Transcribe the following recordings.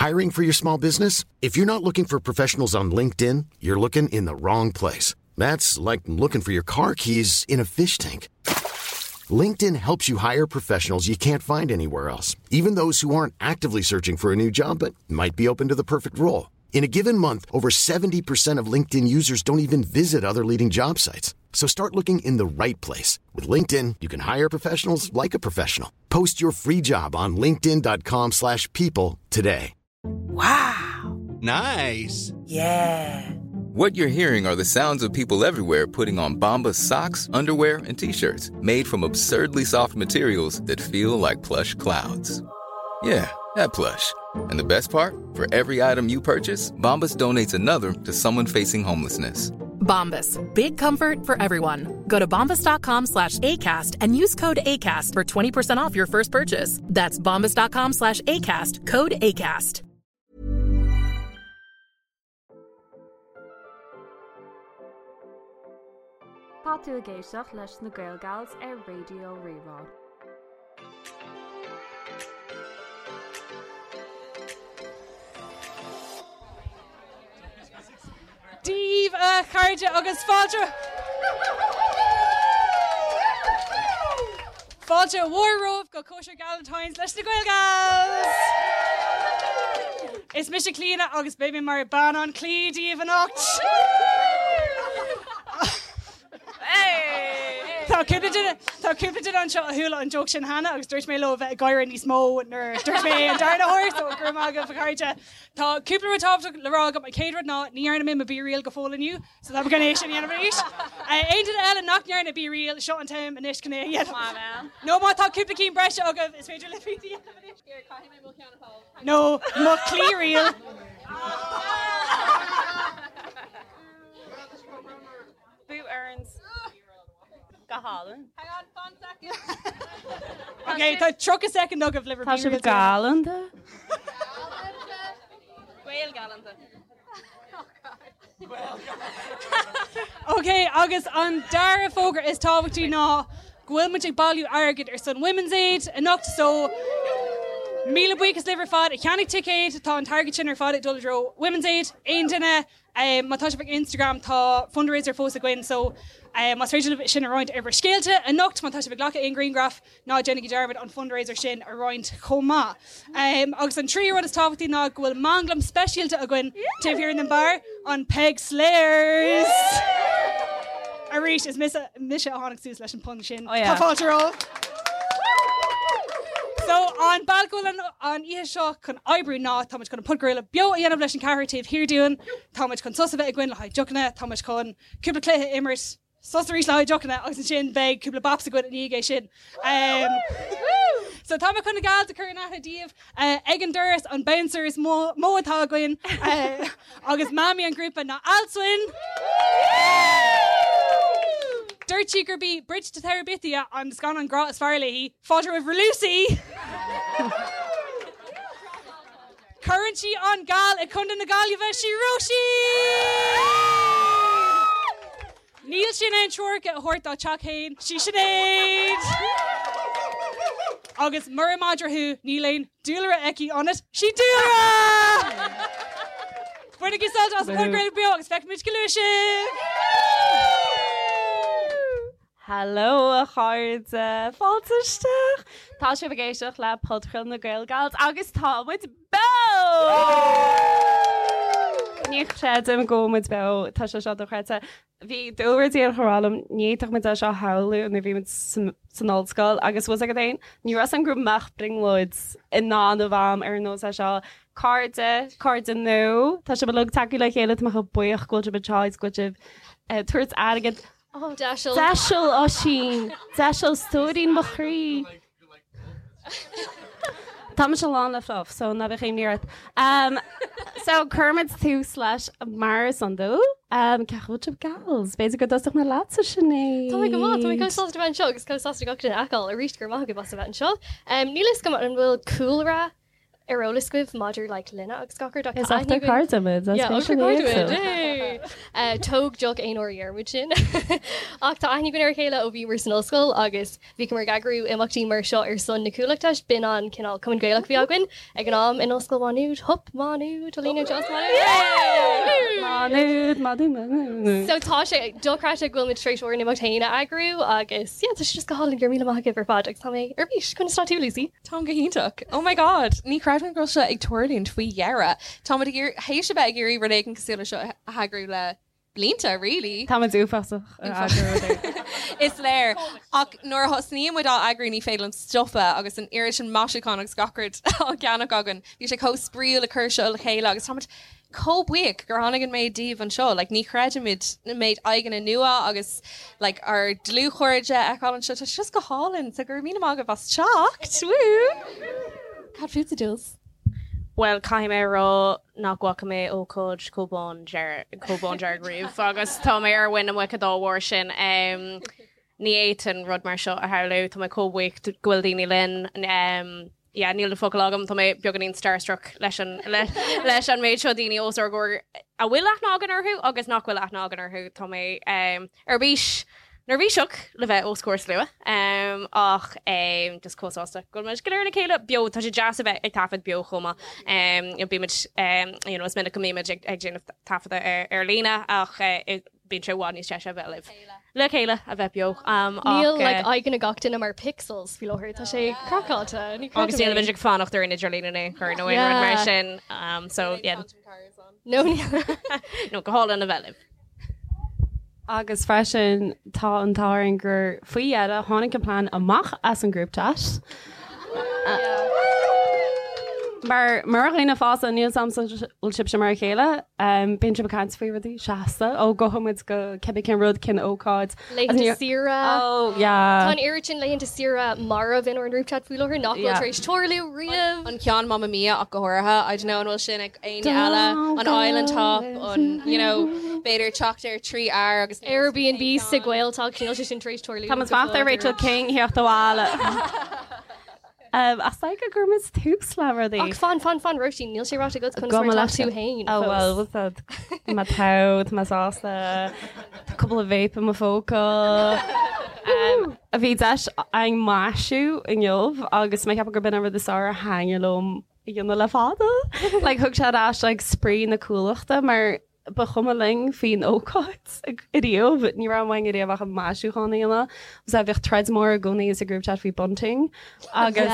Hiring for your small business? If you're not looking for professionals on LinkedIn, you're looking in the wrong place. That's like looking for your car keys in a fish tank. LinkedIn helps you hire professionals you can't find anywhere else, even those who aren't actively searching for a new job but might be open to the perfect role. In a given month, over 70% of LinkedIn users don't even visit other leading job sites. So start looking in the right place. With LinkedIn, you can hire professionals like a professional. Post your free job on linkedin.com/people slash people today. Wow. Nice. Yeah. What you're hearing are the sounds of people everywhere putting on Bombas socks, underwear, and t-shirts made from absurdly soft materials that feel like plush clouds. Yeah, that plush. And the best part? For every item you purchase, Bombas donates another to someone facing homelessness. Bombas. Big comfort for everyone. Go to bombas.com slash ACAST and use code ACAST for 20% off your first purchase. That's bombas.com slash ACAST. Code ACAST. Tá tú ag éisteacht leis na Gael Gals ar Raidió Rí-Rá. Dia daoibh a chairde agus fáilte Fáilte mhór romhaibh go cóisir Galentine's leis na Gael Gals! Is mise Clíona agus beidh mé mar bean an chlaí daoibh anocht! Tá cúpla duine Tá cúpla duine anseo a chuala an joke sin cheana agus dúirt mé leo a bheith ag gáire níos mó nuair a dúirt mé é an darna huair, so go raibh maith agaibh a chairde. Tá cúpla rud tábhachtach le rá agam. An chéad rud ná ní dhearna mé mo BeReal go fóill inniu, so tá mé chun é sin a dhéanamh arís. Aon duine eile nach ndearna BeReal, seo an t-am anois chun é a dhéanamh. Nó má tá cúpla cinn breise agaibh, is féidir libh iad a dhéanamh anois. Nó mo chlaí-real. Bú Erins. Go hálainn. Hang on, fan second. Ok, tá 30 soicind agaibh le bhur Tá sibh galánta. Gael galánta. Ok, agus an dara fógra is tábhachtaí ná go bhfuil muid ag bailiú airgid ar son Women's Aid anocht so míle buíochas libh ar fad a cheannaigh ticéid, tá an t-airgead sin ar fad ag dul i dtreo Women's Aid. Aon duine Má tá sibh ag Instagram tá fundraiser fós againn so más féidir libh sin a roinnt ar bhur scéalta anocht, má tá sibh ag glacadh aon ghrianghraf, ná déanaigí dearmad an fundraiser sin a roinnt chomh maith. Agus an tríú rud is tábhachtaí ná go bhfuil manglam speisialta againn taobh thiar den beár, an Peig Slayers! Arís, is mise a tháinig suas leis an pun sin. Tá fáilte romhaibh! So, an bealach go bhfuil an oíche seo chun oibriú ná tá muid chun an podchraoladh beo a dhéanamh leis an ceathrar taobh thiar dúinn, tá muid chun sos a bheith againn le haghaidh deochanna, tá muid chun cúpla cluiche a imirt, sos arís le haghaidh deochanna agus ansin beidh cúpla baps againn i ndiaidh é sin. So tá mé chun na gals a chur in aithne daoibh ag an doras, an bouncer is mó atá againn agus mamaí an ghrúpa ná Alswyn! Dúirt sí gurb í Bridge to Terabithia an scannán grá is fearr léi, fáilte roimh Lucy! Cuireann sí an gal i Contae na Gaillimhe, sí Róisín! Níl sí in ann treoracha a thabhairt dá teach féin, sí Sinéad! Agus mura madra thú, níl aon dúlra aici ionat, sí Dúlra! Bainigí sult as an podchraoladh beo agus feicfimid go luath sibh! Hello a chairde, fáilte isteach! Tá sibh ag éisteacht le podchraoladh na Gael Gals agus tá muid beo! Ní chreidim go bhfuil muid beo, tá sé seo dochreidte. Bhí Dúlra díreach ag rá liom, ní fhéadfadh muid é seo a shamhlú nuair a bhí muid san ollscoil agus bhfuil a fhios agat féin, ní raibh a fhios agam go mbeadh brionglóid i ndán do Mham ar nós é seo. Cairde, cairde nua, tá sibh uilig tagtha le chéile, tá mé chomh buíoch go bhfuil sibh anseo agus go bhfuil sibh ag tabhairt airgead. Deiseal. Deiseal, Oisín. Deiseal, stóirín mo chroí. Tá mise lán le fluff, so ná bíodh imní ort. Um, so cuirfimid tús leis mar is iondúil. Um, cén chaoi a bhfuil sibh gals? B'fhéidir go dtosódh mé leatsa Sinéad. Tá mé go maith, tá mé chomh sásta a bheith anseo agus chomh sásta gach duine a fheiceáil arís go raibh maith agaibh as a bheith anseo. Um, níl a fhios agam an bhfuil cúlra. ar eolas agaibh maidir like linne agus gach rud ach Is tá aithne ochtar againn cairde muid, as Yeah, féidir ochtar le cairde éagsúil. muid, yay! Tóg deoch aon uair a dheir muid sin. Ach tá aithne againn ar a chéile ó bhíomar san ollscoil agus bhíomar ag eagrú imeachtaí mar seo ar son na Cuallachta. B'in an cineál Cumann Gaelach a bhí againn ag an am in Ollscoil Mhá Nuad. Hup, Má Nuad, Alina Joss Má Nuad! Má Nuad, Má Nuad, Má Nuad. So tá sé dochreidte go bhfuil muid tar éis ár n-imeacht féin a eagrú agus yeah, tá sé just go hálainn. Go raibh míle maith agaibh ar fad agus tá mé ar bís. Conas tá tú, Lucy? Táim go hiontach. Oh my God! Ní chreidim go bhfuil seo ag tarlúint faoi dheireadh. Táimid ag iarraidh, théis a bheith ag iarraidh rud éigin cosúil le seo a heagrú le blianta, really. Táimid uafásach ag eagrú rud éigin. Is léir. Ach nuair a thosnaíonn muid á eagrú ní féidir linn stopadh agus an oiread sin maisiúchán agus gach rud á gceannach againn. Bhí sé chomh spraíúil ag cur seo le chéile agus táimid chomh buíoch gur tháinig an méid díobh anseo. Like, ní chreidimid an méid aghaidheanna nua agus like, ár dlúthchairde a fheiceáil anseo. Tá sé just go hálainn. So go raibh míle maith agaibh as teacht. Woo! Cad fútsa, Jules? Bhuel, caithfidh mé a rá nach bhfaca mé ócáid chomh bándearg, chomh bándearg riamh agus tá mé ar mhuin na muice dá bharr sin. Ní fhéadfainn rud mar seo a shamhlú. Tá mé chomh buíoch go bhfuil daoine linn. Yeah, níl na focail agam, tá mé beagáinín starstruck leis an leis an méid seo daoine os ár gcomhair a bhfuil aithne againn orthu agus nach bhfuil aithne againn orthu. Tá mé ar bís neirbhíseach le bheith os comhair slua ach just chomh sásta go bhfuil muid go léir le chéile beo. Tá sé deas a bheith ag taifead beo chomh maith. Bímid, you know, is minic go mbímid ag déanamh taifeadadh ar líne ach bíonn sé i bhfad níos deise a bheith libh le chéile, a bheith beo. Níl like aghaidheanna gach duine mar pixels faoi láthair, tá sé craiceáilte, ní Agus creidim níl é. muid ag fanacht ar an idirlíon in aon chor nó aon rud mar sin. So yeah. No níl. No, go hálainn a bheith libh. Agus freisin tá an t-ádh orainn gur faoi dheireadh tháinig an plean amach as an group chat. Mar mar dhaoine fásta, níl 's a'm an bhfuil sibhse mar a chéile, bíonn sibh ag caint faoi rudaí seasta, ó gabhfaidh muid go cibé cén rud, cén ócáid. Laethanta saoire. Oh, yeah. Tá an oiread sin laethanta saoire marbh inár ngrúp chat faoi láthair nach bhfuil tar éis tarlú riamh. An ceann Mamma Mia ach go háirithe, I don't know an bhfuil sin ag éinne eile, an island hop, an, you know, b'fhéidir teacht ar 3 fhear agus. Airbnb sa Ghaeltacht, níl sé sin tar éis tarlú. Tá muid ag fanacht ar Rachel King theacht abhaile. Ach is go gcuirfidh muid tús le rudaí. Ach fan, fan, fan, Róisín, níl sé ráite agat conas mar atá tú féin Oh well, fós. what's that? Tá mé togha, tá mé sásta, tá cúpla vape i mo phóca. Bhí deis a'inn maisiú inniu agus mé ag ceapadh gurb in an rud is fearr a thaitnigh liom a dhéanamh le fada. Like, thug sé ar ais like, spraoi na Cuallachta mar ba chuma linn faoin ócáid ariamh, ní raibh uainn ariamh ach an maisiúchán a dhéanamh. Agus bhíodh troid mór i gcónaí sa group chat faoi bunting agus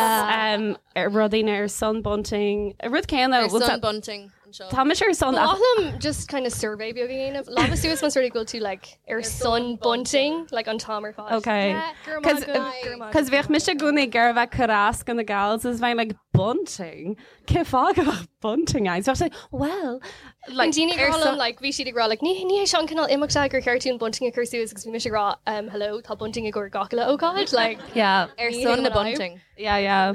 rudaí ar son bunting, rud céanna. Ar son bunting anseo. Tá mise ar son. Ba mhaith liom just kind of survey beag a dhéanamh. Lámha suas más rud é go bhfuil tú like ar son bunting like an t-am ar fad. Okay. Yeah, go raibh maith agat, go raibh maith Cos bhíodh mise i gcónaí ag iarraidh bheith ag cur as do na gals is bheinn like bunting? Cén fáth go mbeadh bunting ann? So bheadh sé well like Daoine ag rá liom like bhí siad ag rá like ní ní hé seo an cineál imeachta gur cheart dúinn bunting a chur suas agus bhí mise ag rá um hello tá bunting i gcomhair gach uile ócáid like Yeah. Ar son na bunting. Yeah, yeah.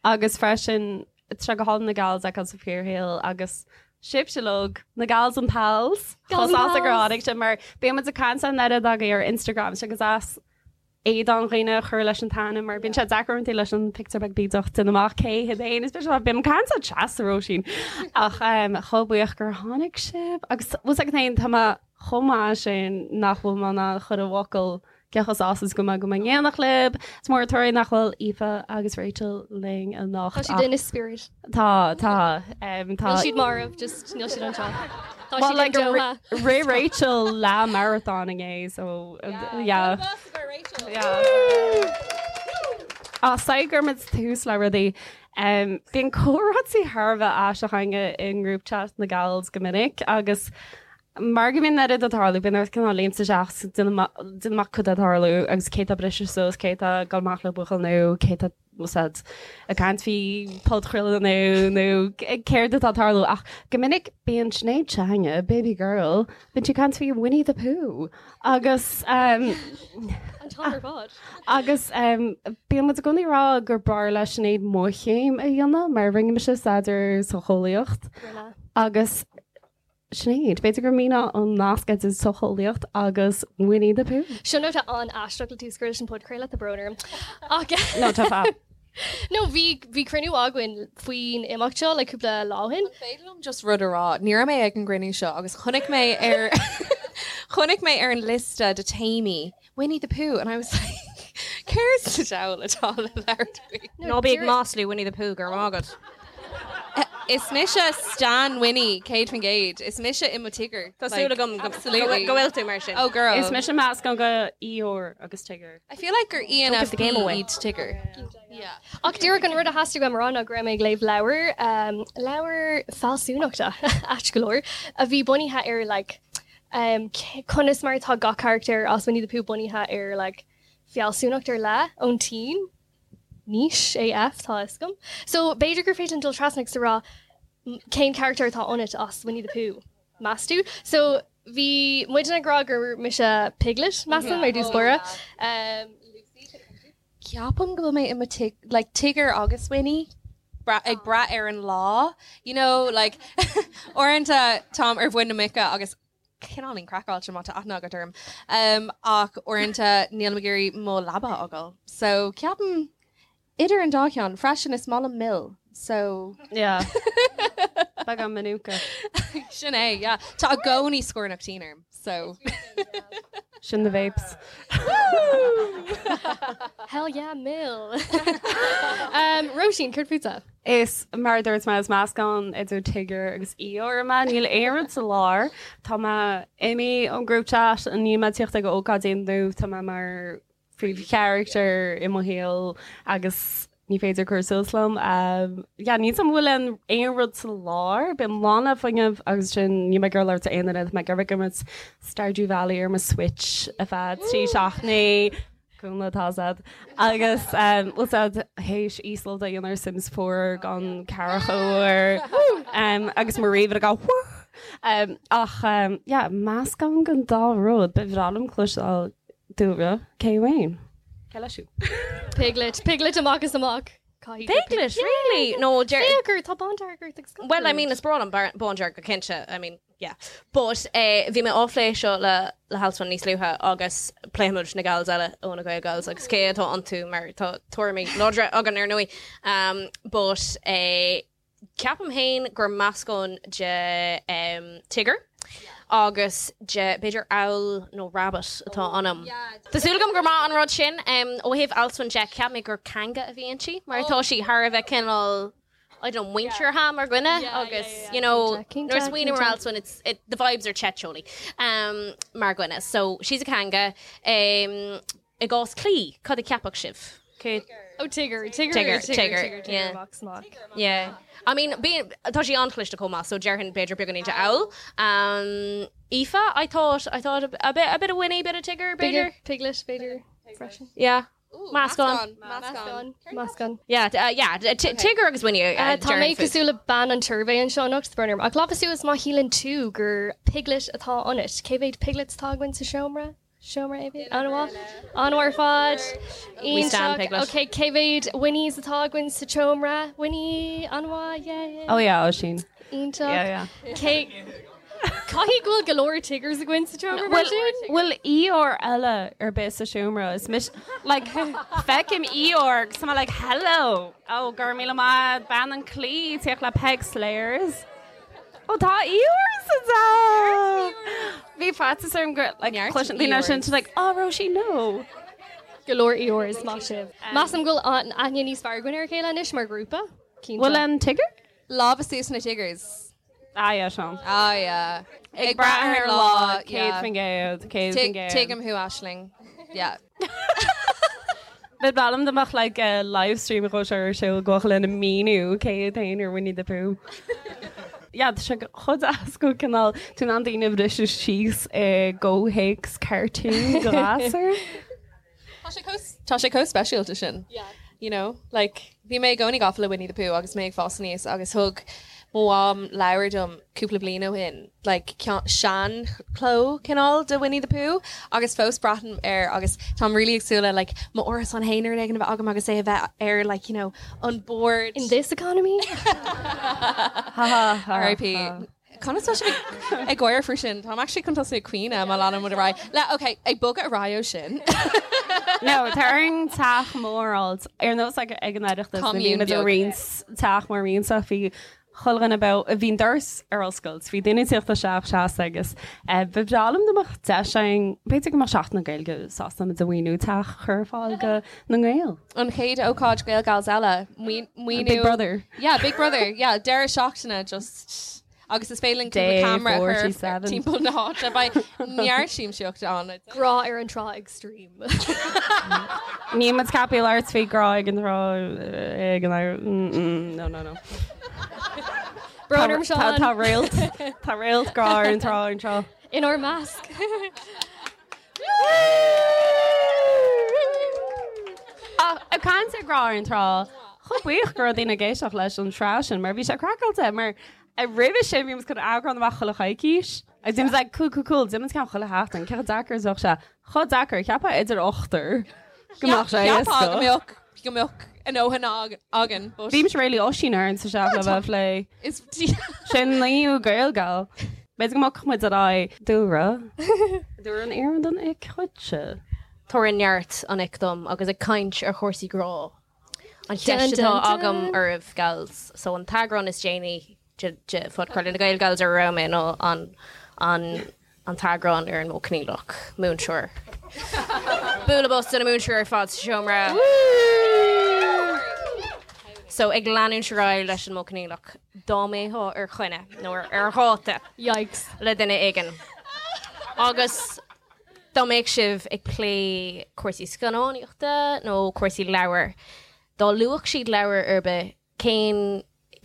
Agus freisin tá sé go hálainn na gals a fheiceáil sa fíorshaol agus sibhse uilig, na gals and pals, chomh sásta gur tháinig sibh mar bíonn muid ag caint an oiread agaibh ar Instagram agus as éadán dhaoine a chur leis an t-ainm mar bíonn sé deacair uaireanta leis an pictiúr beag bídeach déanamh amach cé hiad féin is bíonn bím ag caint le Treasa Róisín ach chomh buíoch gur tháinig sibh agus bhfuil 's agat féin tá mé chomh maith sin nach bhfuil mé in ann chur i bhfocail cé chomh sásta is go mbeidh go mbeidh in éineacht libh. Is mór an trua nach bhfuil Aoife agus Rachel linn anocht. Tá siad in spirit. Tá, tá. Tá. Níl siad marbh, just níl siad anseo. Tá Well, siad like, in Doha. Rith Rachel leath marathon inné, so yeah. Yeah. Á, so go gcuirfidh muid tús le rudaí. Bíonn comhráití thar a bheith aisteach againne i ngrúp chat na gals go minic agus mar go mbíonn an oiread ag tarlú, bíonn ort cineál léimt isteach 's déanamh amach cad tá ag tarlú agus cé tá briste suas, cé tá ag dul amach le buachaill nó cé tá úsáid ag caint faoi podchraoladh nó nó céard atá ag tarlú ach go minic bíonn Sinéad s'againne, baby girl, bíonn sí ag caint faoi Winnie the Pooh agus An t-am ar fad. agus bíonn muid i gcónaí ag rá gur b'fhearr le Sinéad mo chéim a dhéanamh mar rinne mise staidéar socheolaíocht Rinne. agus Sinéad, b'fhéidir go míneofá an nasc idir socheolaíocht agus Winnie the Pooh. Seo nóta an-aisteach le tús a chur leis an podchraoladh, tá brón orm. Ach No, tá fab. No, bhí bhí cruinniú againn faoin imeacht seo le cúpla lá ó shin. An féidir liom just rud a rá? Ní raibh mé ag an gcruinniú seo agus chonaic mé ar chonaic mé ar an liosta de téamaí Winnie the Pooh and I was like céard sa diabhal atá le labhairt faoi? Ná bí ag maslú Winnie the Pooh, go raibh maith agat. Is mise Stan Winnie, 100%. Is mise i mo Tigger. Tá súil agam go bhfuil tú mar sin. Oh girl. Is mise meascán de Eeyore agus Tigger. I feel like gur Don't give the ENFP game away. iad Tigger. Ach díreach an rud a theastaigh uaim a rá ná go raibh mé ag léamh leabhar, leabhar fealsúnachta, ait go leor, a bhí bunaithe ar like conas mar atá gach carachtar as Winnie the Pooh bunaithe ar like fealsúnacht ar leith ón tSín. Niche AF, tá a fhios agam. So, b'fhéidir gur féidir linn dul trasna agus a rá cén carachtar atá ionat as Winnie the Pooh, meas tú? So, bhí muidne ag rá gur mise Piglet, measaim, ar dtús báire. Ceapaim go bhfuil mé i mo tig, like Tigger agus Winnie, ag brath ar an lá, you know, like uaireanta táim ar mhuin na muice agus cineáilín craiceáilte má tá aithne agat orm. Ach uaireanta nílim ag iarraidh mo leaba a fhágáil. So ceapaim idir an dá cheann. Freisin is maith liom mil. So. Yeah. Beagán Manuka. Sin é, yeah. Tá i gcónaí scornach tinn orm. So. Sin the vapes. Hell yeah, mil. Róisín, céard fútsa? Is mar a dúirt mé, is meascán idir Tigger agus Eeyore mé. Níl aon rud sa lár. Tá mé imithe ón group chat, níl mé ag tíocht ag ócáidí nó tá mé mar phríomhcharachtar i mo shaol agus ní féidir cur suas liom. Yeah, níl 's agam an bhfuil aon rud sa lár. Bím lán le fuinneamh agus sin níl mé ag iarraidh labhairt le aon duine, tá mé ag iarraidh ag imirt Stardew Valley ar mo Switch ar feadh 3 seachtainí. Cúnla tá siad. Agus bhfuil siad théis íoslódáil a dhéanamh ar Sims 4 gan ceathracha uair agus mo ríomhaire ag gabháil Ach yeah, meascán den dá rud. Ba bhreá liom cloisteáil Dúlra, cé amháin? Cé leis thú? Piglet, Piglet amach is amach. Piglet, really? No, Féach ort, tá bándearg ort agus Well, I mean, is breá liom bándearg go cinnte, I mean, Yeah. But eh, bhí mé á phlé seo le le hAlswyn níos luaithe agus pléifimid na gals eile ó na Gael Gals agus cé atá iontu mar tá tuairimí láidre againn ar ndóigh. Um, but eh, ceapaim féin gur meascán de um, Tigger agus de b'fhéidir owl nó rabbit atá ionam. Tá súil agam gur maith an rud sin. Um, ó thaobh Alswyn de, cheap mé gur kanga a bhí inti mar tá sí thar a bheith cineál I don't know, muinteartha mar dhuine agus, you know, nuair a smaoiním ar Alswyn, it's, it, the vibes are Chetcholey um, mar dhuine. So, she's a kanga. Um, I gcás Clí, cad a cheapfadh sibh? Cé... Oh, Tigger, Tigger, Tigger, Tigger, Tigger, yeah. Amach amach. Yeah. I mean, bí, tá sí an-chliste chomh maith, so déarfainn b'fhéidir beagáinín de owl. Um, Aoife, I thought, I thought a, a bit, a bit of Winnie, a bit of Tigger, b'fhéidir. Piglet, b'fhéidir, freisin. Yeah. Meascán. Meascán. Meascán. Yeah, yeah, Tigger agus Winnie. Tá mé cosúil le bean an tsuirbhé anseo anocht, brón orm. Ach lámh suas má shíleann tú gur Piglet atá ionat. Cé mhéad Piglets atá againn sa seomra? Seomra AB? An-mhaith. An-mhaith ar fad. We stand Piglet. Ok, cé mhéad Winnies atá againn sa tseomra? Winnie, an-mhaith, yeah, yeah. Oh yeah, Oisín. Iontach. Yeah, yeah. Cé Caithfidh go bhfuil go leor Tiggers againn sa tseomra mar sin? Bhfuil Eeyore eile ar bith sa seomra? Is mise, like, feicim Eeyore agus tá mé like, hello! Oh, go raibh míle maith, bean an claí, tíocht le Peig Slayers. Oh, tá Eeyore sa teach! Bhí faitíos orm gur, like, cloiseann daoine sin, like, oh, Róisín, no! Go leor Eeyores, maith sibh. Measaim go bhfuil an aithne níos fearr againn ar a chéile anois mar ghrúpa, cinnte. Bhfuil an Tigger? Lámha suas na Tiggers. Ah yeah, Seán. Ah yeah. Ag brath ar an lá, 100%, 100%. Tuigim thú, Aisling. Yeah. Ba bhreá liom dá mbeadh like live stream dhó seo ar siúl go lena míniú cé hiad féin ar Winnie the Pooh. Yeah, tá sé chomh deas go cineál tú in ann daoine a bhriseadh síos i gcomhthéacs cartoon do ghasúr. Tá sé chomh speisialta sin. You know, like, bhí mé i gcónaí gafa le Winnie the Pooh agus mé ag fás aníos agus thug mo mham leabhar dom cúpla bliain ó shin, like, sean-chló cineál de Winnie the Pooh agus fós breathnaím air agus táim really ag súil le like mo árasán féin uair éigin a bheith agam agus é a bheith ar like, you know, an bord. In this economy? RIP. Conas tá sibh ag gáire faoi sin? Táim actually chun tosú ag caoineadh má leanann muid ar aghaidh. Le, ok, ag bogadh ar aghaidh ó sin. No, tá orainn teach mór a fháilt. Ar nós ag an Oireachtas, nuair a bhí Commune muid ag beag. roinnt teach mór roinnte, bhí chuile dhuine beo, bhí an doras ar oscailt, bhí daoine ag tíocht isteach seasta agus ba bhreá liom dá mbeadh deis againn, b'fhéidir go mbeadh Seachtain na Gaeilge sásta muid a mhaoiniú teach a chur ar fáil do na nGaeil. An chéad ócáid Gael Gals eile, maoiniú. Big Brother. Yeah, Big Brother, yeah, deireadh seachtaine just agus is féidir linn cúpla Day camera a chur 47. timpeall na háite, beidh neart siamsaíochta ann. Grá ar an trá extreme. Níl muid ceaptha labhairt faoi grá ag an trá ag an no no no. Brón orm Seán. Tá réalt tá réalt grá ar an trá ar an trá. Inár measc. Ach ag caint ar grá ar an trá, chomh buíoch go raibh daoine ag éisteacht leis an tsraith sin mar bhí sé craiceáilte mar roimhe sin bhí muid chun eagrán amach chuile choicís agus bhí muid like cool cool cool déanfaidh muid ceann chuile sheachtain cé chomh deacair is a bheadh sé chomh deacair cheapfá idir ochtar go mbeadh sé Cheapfá go éasca. mbeadh go mbeadh a ndóthain againn but Bhímis really Oisín orainn sa seach le bheith plé. is Sin naoú Gaelgal. B'fhéidir go mbogfadh muid ar aghaidh. Dúlra. Dúlra an iarrann don ic dhuitse. Tabhair neart an ic dom agus ag caint ar chúrsaí grá. An Dun, cheist dun, atá agam dun. oraibh, gals, so an t-eagrán is déanaí de de phodchraoladh na Gael Gals ar a raibh mé ná an an an t-eagrán ar an modh coinníollach, múinteoir. Bualadh bos do na múinteoirí ar fad sa seomra. So ag leanúint ar aghaidh leis an modh coinníollach, dá mbeifeá ar choinne nó ar ar dháta Yikes. le duine éigin agus dá mbeadh sibh ag plé cúrsaí scannánaíochta nó cúrsaí leabhar, dá luafadh siad leabhar ar bith, cén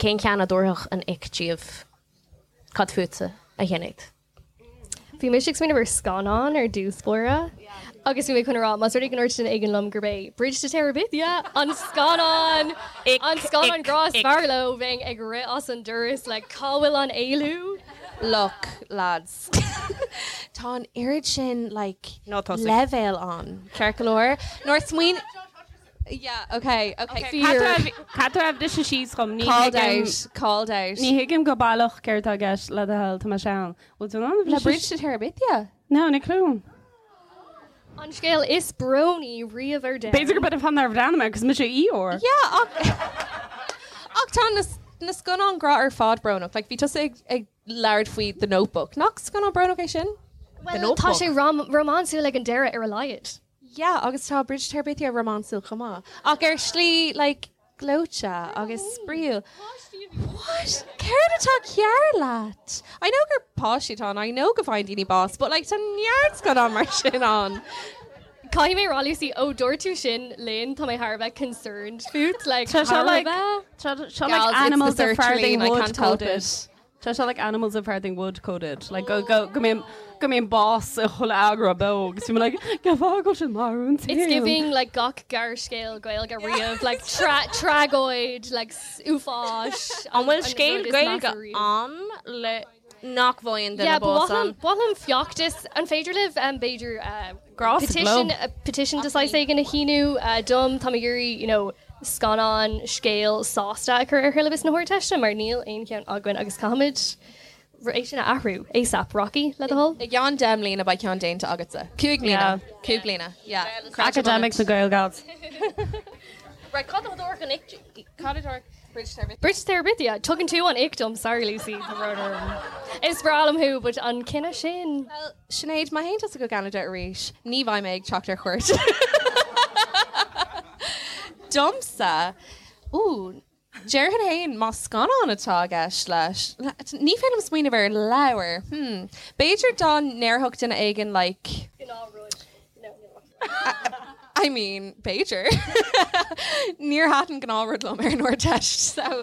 cén ceann a dtabharfadh an ic díobh? Cad fútsa, a Shinéad? Bhí mise ag smaoineamh ar scannán ar dtús báire agus bhí mé chun a rá más rud é go ndúirt duine éigin liom gurb é Bridge to Terabithia an scannán an scannán grá is fearr leo, bheinn ag rith as an doras like cá bhfuil an éalú? Look, lads, tá an oiread sin like Ná tosaigh. leibhéal ann, ceart go leor? Nuair a smaoin- Yeah, okay, okay. Fear. Cad raibh de síos chum? Ní Called thuigim- out, called out. Ní thuigim go baileach céard atá i gceist le do thoil, tá mé sean. Bhfuil tú in ann Le Bridge to Terabithia? No, ní clue. An scéal is brónaí riamh ar domhan. B'fhéidir gurb é an fáth nár bhreathnaigh mé, cos mise Eeyore. Yeah, ach ach tá na na scannáin grá ar fad brónach. Like, bhí tusa ag ag labhairt faoi The Notebook. Nach scannán brónach é sin? Well, tá sé rom rómánsúil ag an deireadh ar a laghad. Yeah, agus tá Bridge to Terabithia rómánsúil chomh maith. Ach ar shlí, like, gleoite agus spraíúil. What? Céard atá cearr leat? I know gur páistí atá ann, I know go bhfaigheann daoine bás, but like, tá neart scannán mar sin ann. Caithfidh mé a rá, Lucy, ó dúirt tú sin linn, tá mé thar a bheith concerned fút, like, Tá sé thar a like, bheith. tá sé like Gals, it's animals the of Farthing sertraline, I Wood can't help coded. it. Tá sé like animals of Farthing Wood coded. Like go go go mbíonn go mbíonn bás i chuile eagrán beo agus bím like cén fáth go bhfuil siad marbh an It's giving like gach gearrscéal Gaeilge riamh, like tra tragóid, like uafáis. An bhfuil an scéal rud is Gaeilge measa riamh. ann le nach bhfaigheann duine Yeah, ba bás mhaith liom ann? ba mhaith liom feachtas, an féidir libh um, b'fhéidir uh, Grá sa petition, gclub. uh, petition de saghas éigin a shíniú uh, dom, tá mé ag iarraidh, you know, scannán scéal sásta a chur ar shiollabas na hArdteiste mar níl aon cheann againn agus caithfimid é sin a athrú ASAP Rocky le do thoil. I gceann 10 mbliana beidh ceann déanta agatsa. 5 mbliana. 5 bliana. Yeah. Academics na Gael Gals. Right, cad a thabharfadh an ic? Cad a thabharfadh Bridge to Terabithia? Bridge to Terabithia, tugann tú an ick dom, sorry Lucy, tá brón orm. Is breá liom thú, but an cinneadh sin. Well, Sinéad, má théann tusa go Ceanada arís, ní bheidh mé ag teacht ar cuairt. Domsa, ooh, déarfainn féin má scannán atá i gceist leis, ní féidir liom smaoineamh ar leabhar, hmm, b'fhéidir dá ndéarfadh duine éigin like, Gnáthrud. No, no. I mean, b'fhéidir. Níor thaitin gnáthrud liom ar an Ardteist, so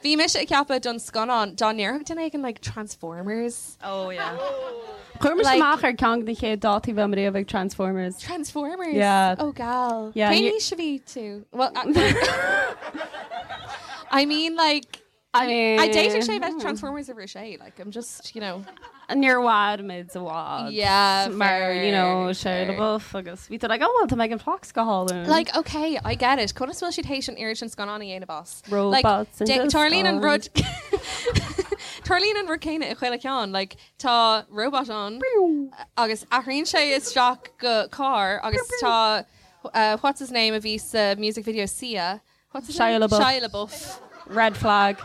bhí mise ag ceapadh don scannán dá ndéarfadh duine éigin like Transformers. Oh yeah. Chuir mise Like- amach ar ceann de na chéad dátaí bheith riamh ag Transformers. Transformers? Yeah. Oh gal. Yeah, Cén you- aois a bhí tú? Well, I, I mean like I mean, I d'fhéadfadh sé bheith Transformers uimhir a sé, like I'm just, you know. Níor mhair muid i bhfad. Yeah, Mar, you know, fair, Shia fair. LaBeouf agus bhí tú like, oh well, tá Megan Fox go hálainn. Like, okay, I get it. Conas bhfuil siad théis an oiread sin scannán a dhéanamh as? Robots Like, in tarlaíonn an rud disguise. Tarlaíonn an rud céanna i chuile cheann, like tá robot ann agus athraíonn sé isteach go carr agus tá uh, what's his name a bhí sa music video Sia, what's his Shia name? LaBeouf. Shia LaBeouf. Red flag.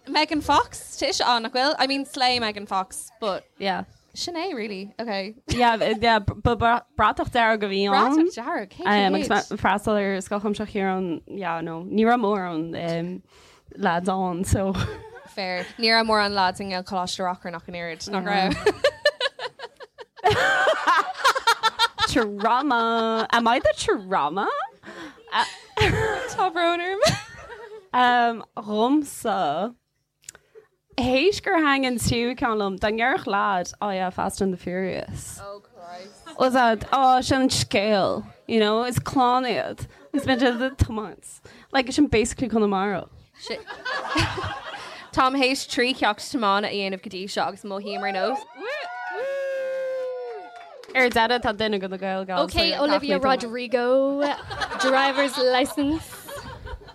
Megan Fox, tá ise ann, nach bhfuil? I mean slay Megan Fox, but Yeah. sin é really, okay. Yeah, yeah, ba bratach dearg a bhí ann. Bratach dearg, cé Um, agus chéad? mé freastal ar Scoil Chuimsitheach Chiaráin, yeah, no, ní raibh mórán um, lads ann, so. Fair. Ní raibh mórán lads i nGaelcholáiste Reachrann ach an oiread, nach raibh? Trauma. Am I the trauma? Tá brón orm. Um, Dhomsa. Théis gur thaitin an tríú ceann liom, dá ndéarfadh lad, oh yeah, Fast and the Furious. Oh Christ. Was that, oh, sin an scéal, you know, is clann iad. Is bíonn siad ag tiomáint. Like, sin basically Conamara. Táim théis 3 cheacht tiomána a dhéanamh go dtí seo agus mothaím ar nós. Ar deireadh tá duine de na Gael Gals. Ok, Olivia Rodrigo, driver's license.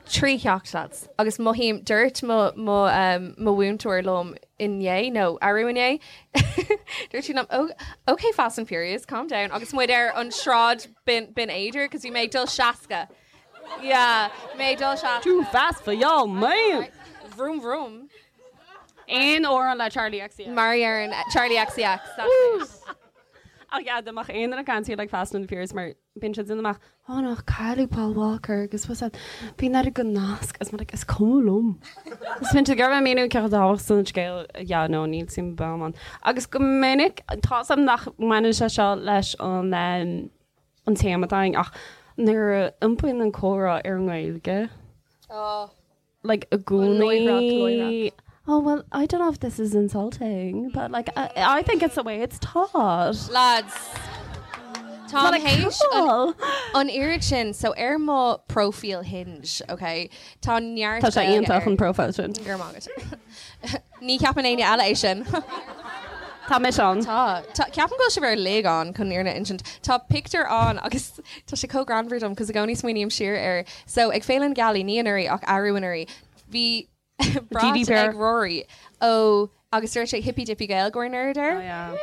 3 cheacht lads. Agus mothaím, dúirt mo mo um, mo mhúinteoir liom inné nó arú inné, dúirt sí liom, oh, ok Fast and Furious, calm down, agus muid ar an sráid Binn Binn Éadair, cos bhí mé ag dul 60. Yeah, mé ag dul 60. Too fast for y'all, man! Vroom vroom. Aon amhrán le Charli XCX. Mar ar an Charli XCX, that's it. Ach yeah, dá mbeadh aon duine ag caint like Fast and the Furious mar bíonn siad ag déanamh amach, oh no, cailleadh Paul Walker agus was that, bíonn air go nasc agus mar like, is cuma liom. Is bíonn siad ag iarraidh míniú cé chomh tábhachtach san scéal, yeah, no, níl suim agam ann. Agus go minic, tá 's agam nach mbaineann sé seo leis an um, an téama atá againn ach nuair a iompaíonn an comhrá ar an nGaeilge, Oh. like i gcónaí Oh well, I don't know if this is insulting, but like I, I think it's the way it's taught. Lads, Tá Like, théis cool. an oiread sin so ar mo profile Hinge, ok? Tá neart Tá sé Gaeilge iontach air. an profile sin. Go raibh maith agat. Ní cheapann éinne eile é sin. Tá mise ann. Tá. Tá ceapaim go bhfuil sibh uilig ann chun an fhírinne a insint. Tá pictiúr ann agus tá sé chomh greannmhar dom cos i gcónaí smaoiním siar air. So ag Féile na Gealaí, ní anuraidh ach arú anuraidh, bhí brat GDPR. ag Rory ó agus dúirt sé hippy dippy Gaeilgeoir nerd air. Oh, yeah.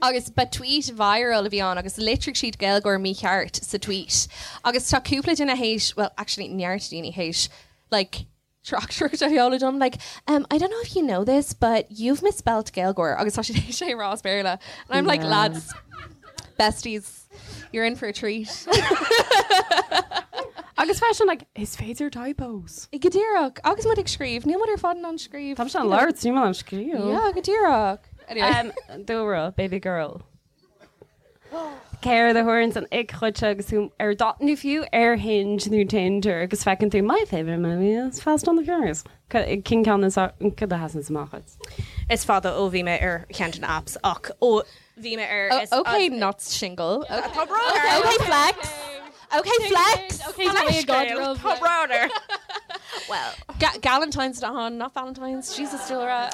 Agus ba tweet viral a bhí ann agus litrigh siad Gaeilgeoir mícheart sa tweet. Agus tá cúpla duine théis, well actually neart daoine théis, like, tráchtaireacht a sheoladh dom like um, I don't know if you know this but you've misspelt Gaeilgeoir agus tá siad théis é a rá as Béarla and I'm like Yeah. lads besties you're in for a treat. Agus freisin like is féidir typos. Go díreach agus muid ag scríobh níl muid ar fad in ann scríobh. Tá sé an labhairt níl an scríobh. Yeah, go díreach. Anyway. Um, Dúlra, baby girl. Céard a tharlaíonn an ick dhuit agus tú ar dot nó fiú ar Hinge nó Tinder agus feiceann tú my favourite movie is Fast and the Furious. Cén ceann is cad a sheasann amach dhuit? Is fada ó bhí mé ar cheann de na apps ach ó bhí mé ar Oh, okay, not single. Okay, Tá brón orm. okay flex. Okay, flex. Okay, tá mé ag Tá brón orm. Well, Galentine's on, not Valentine's. Jesus, Dúlra.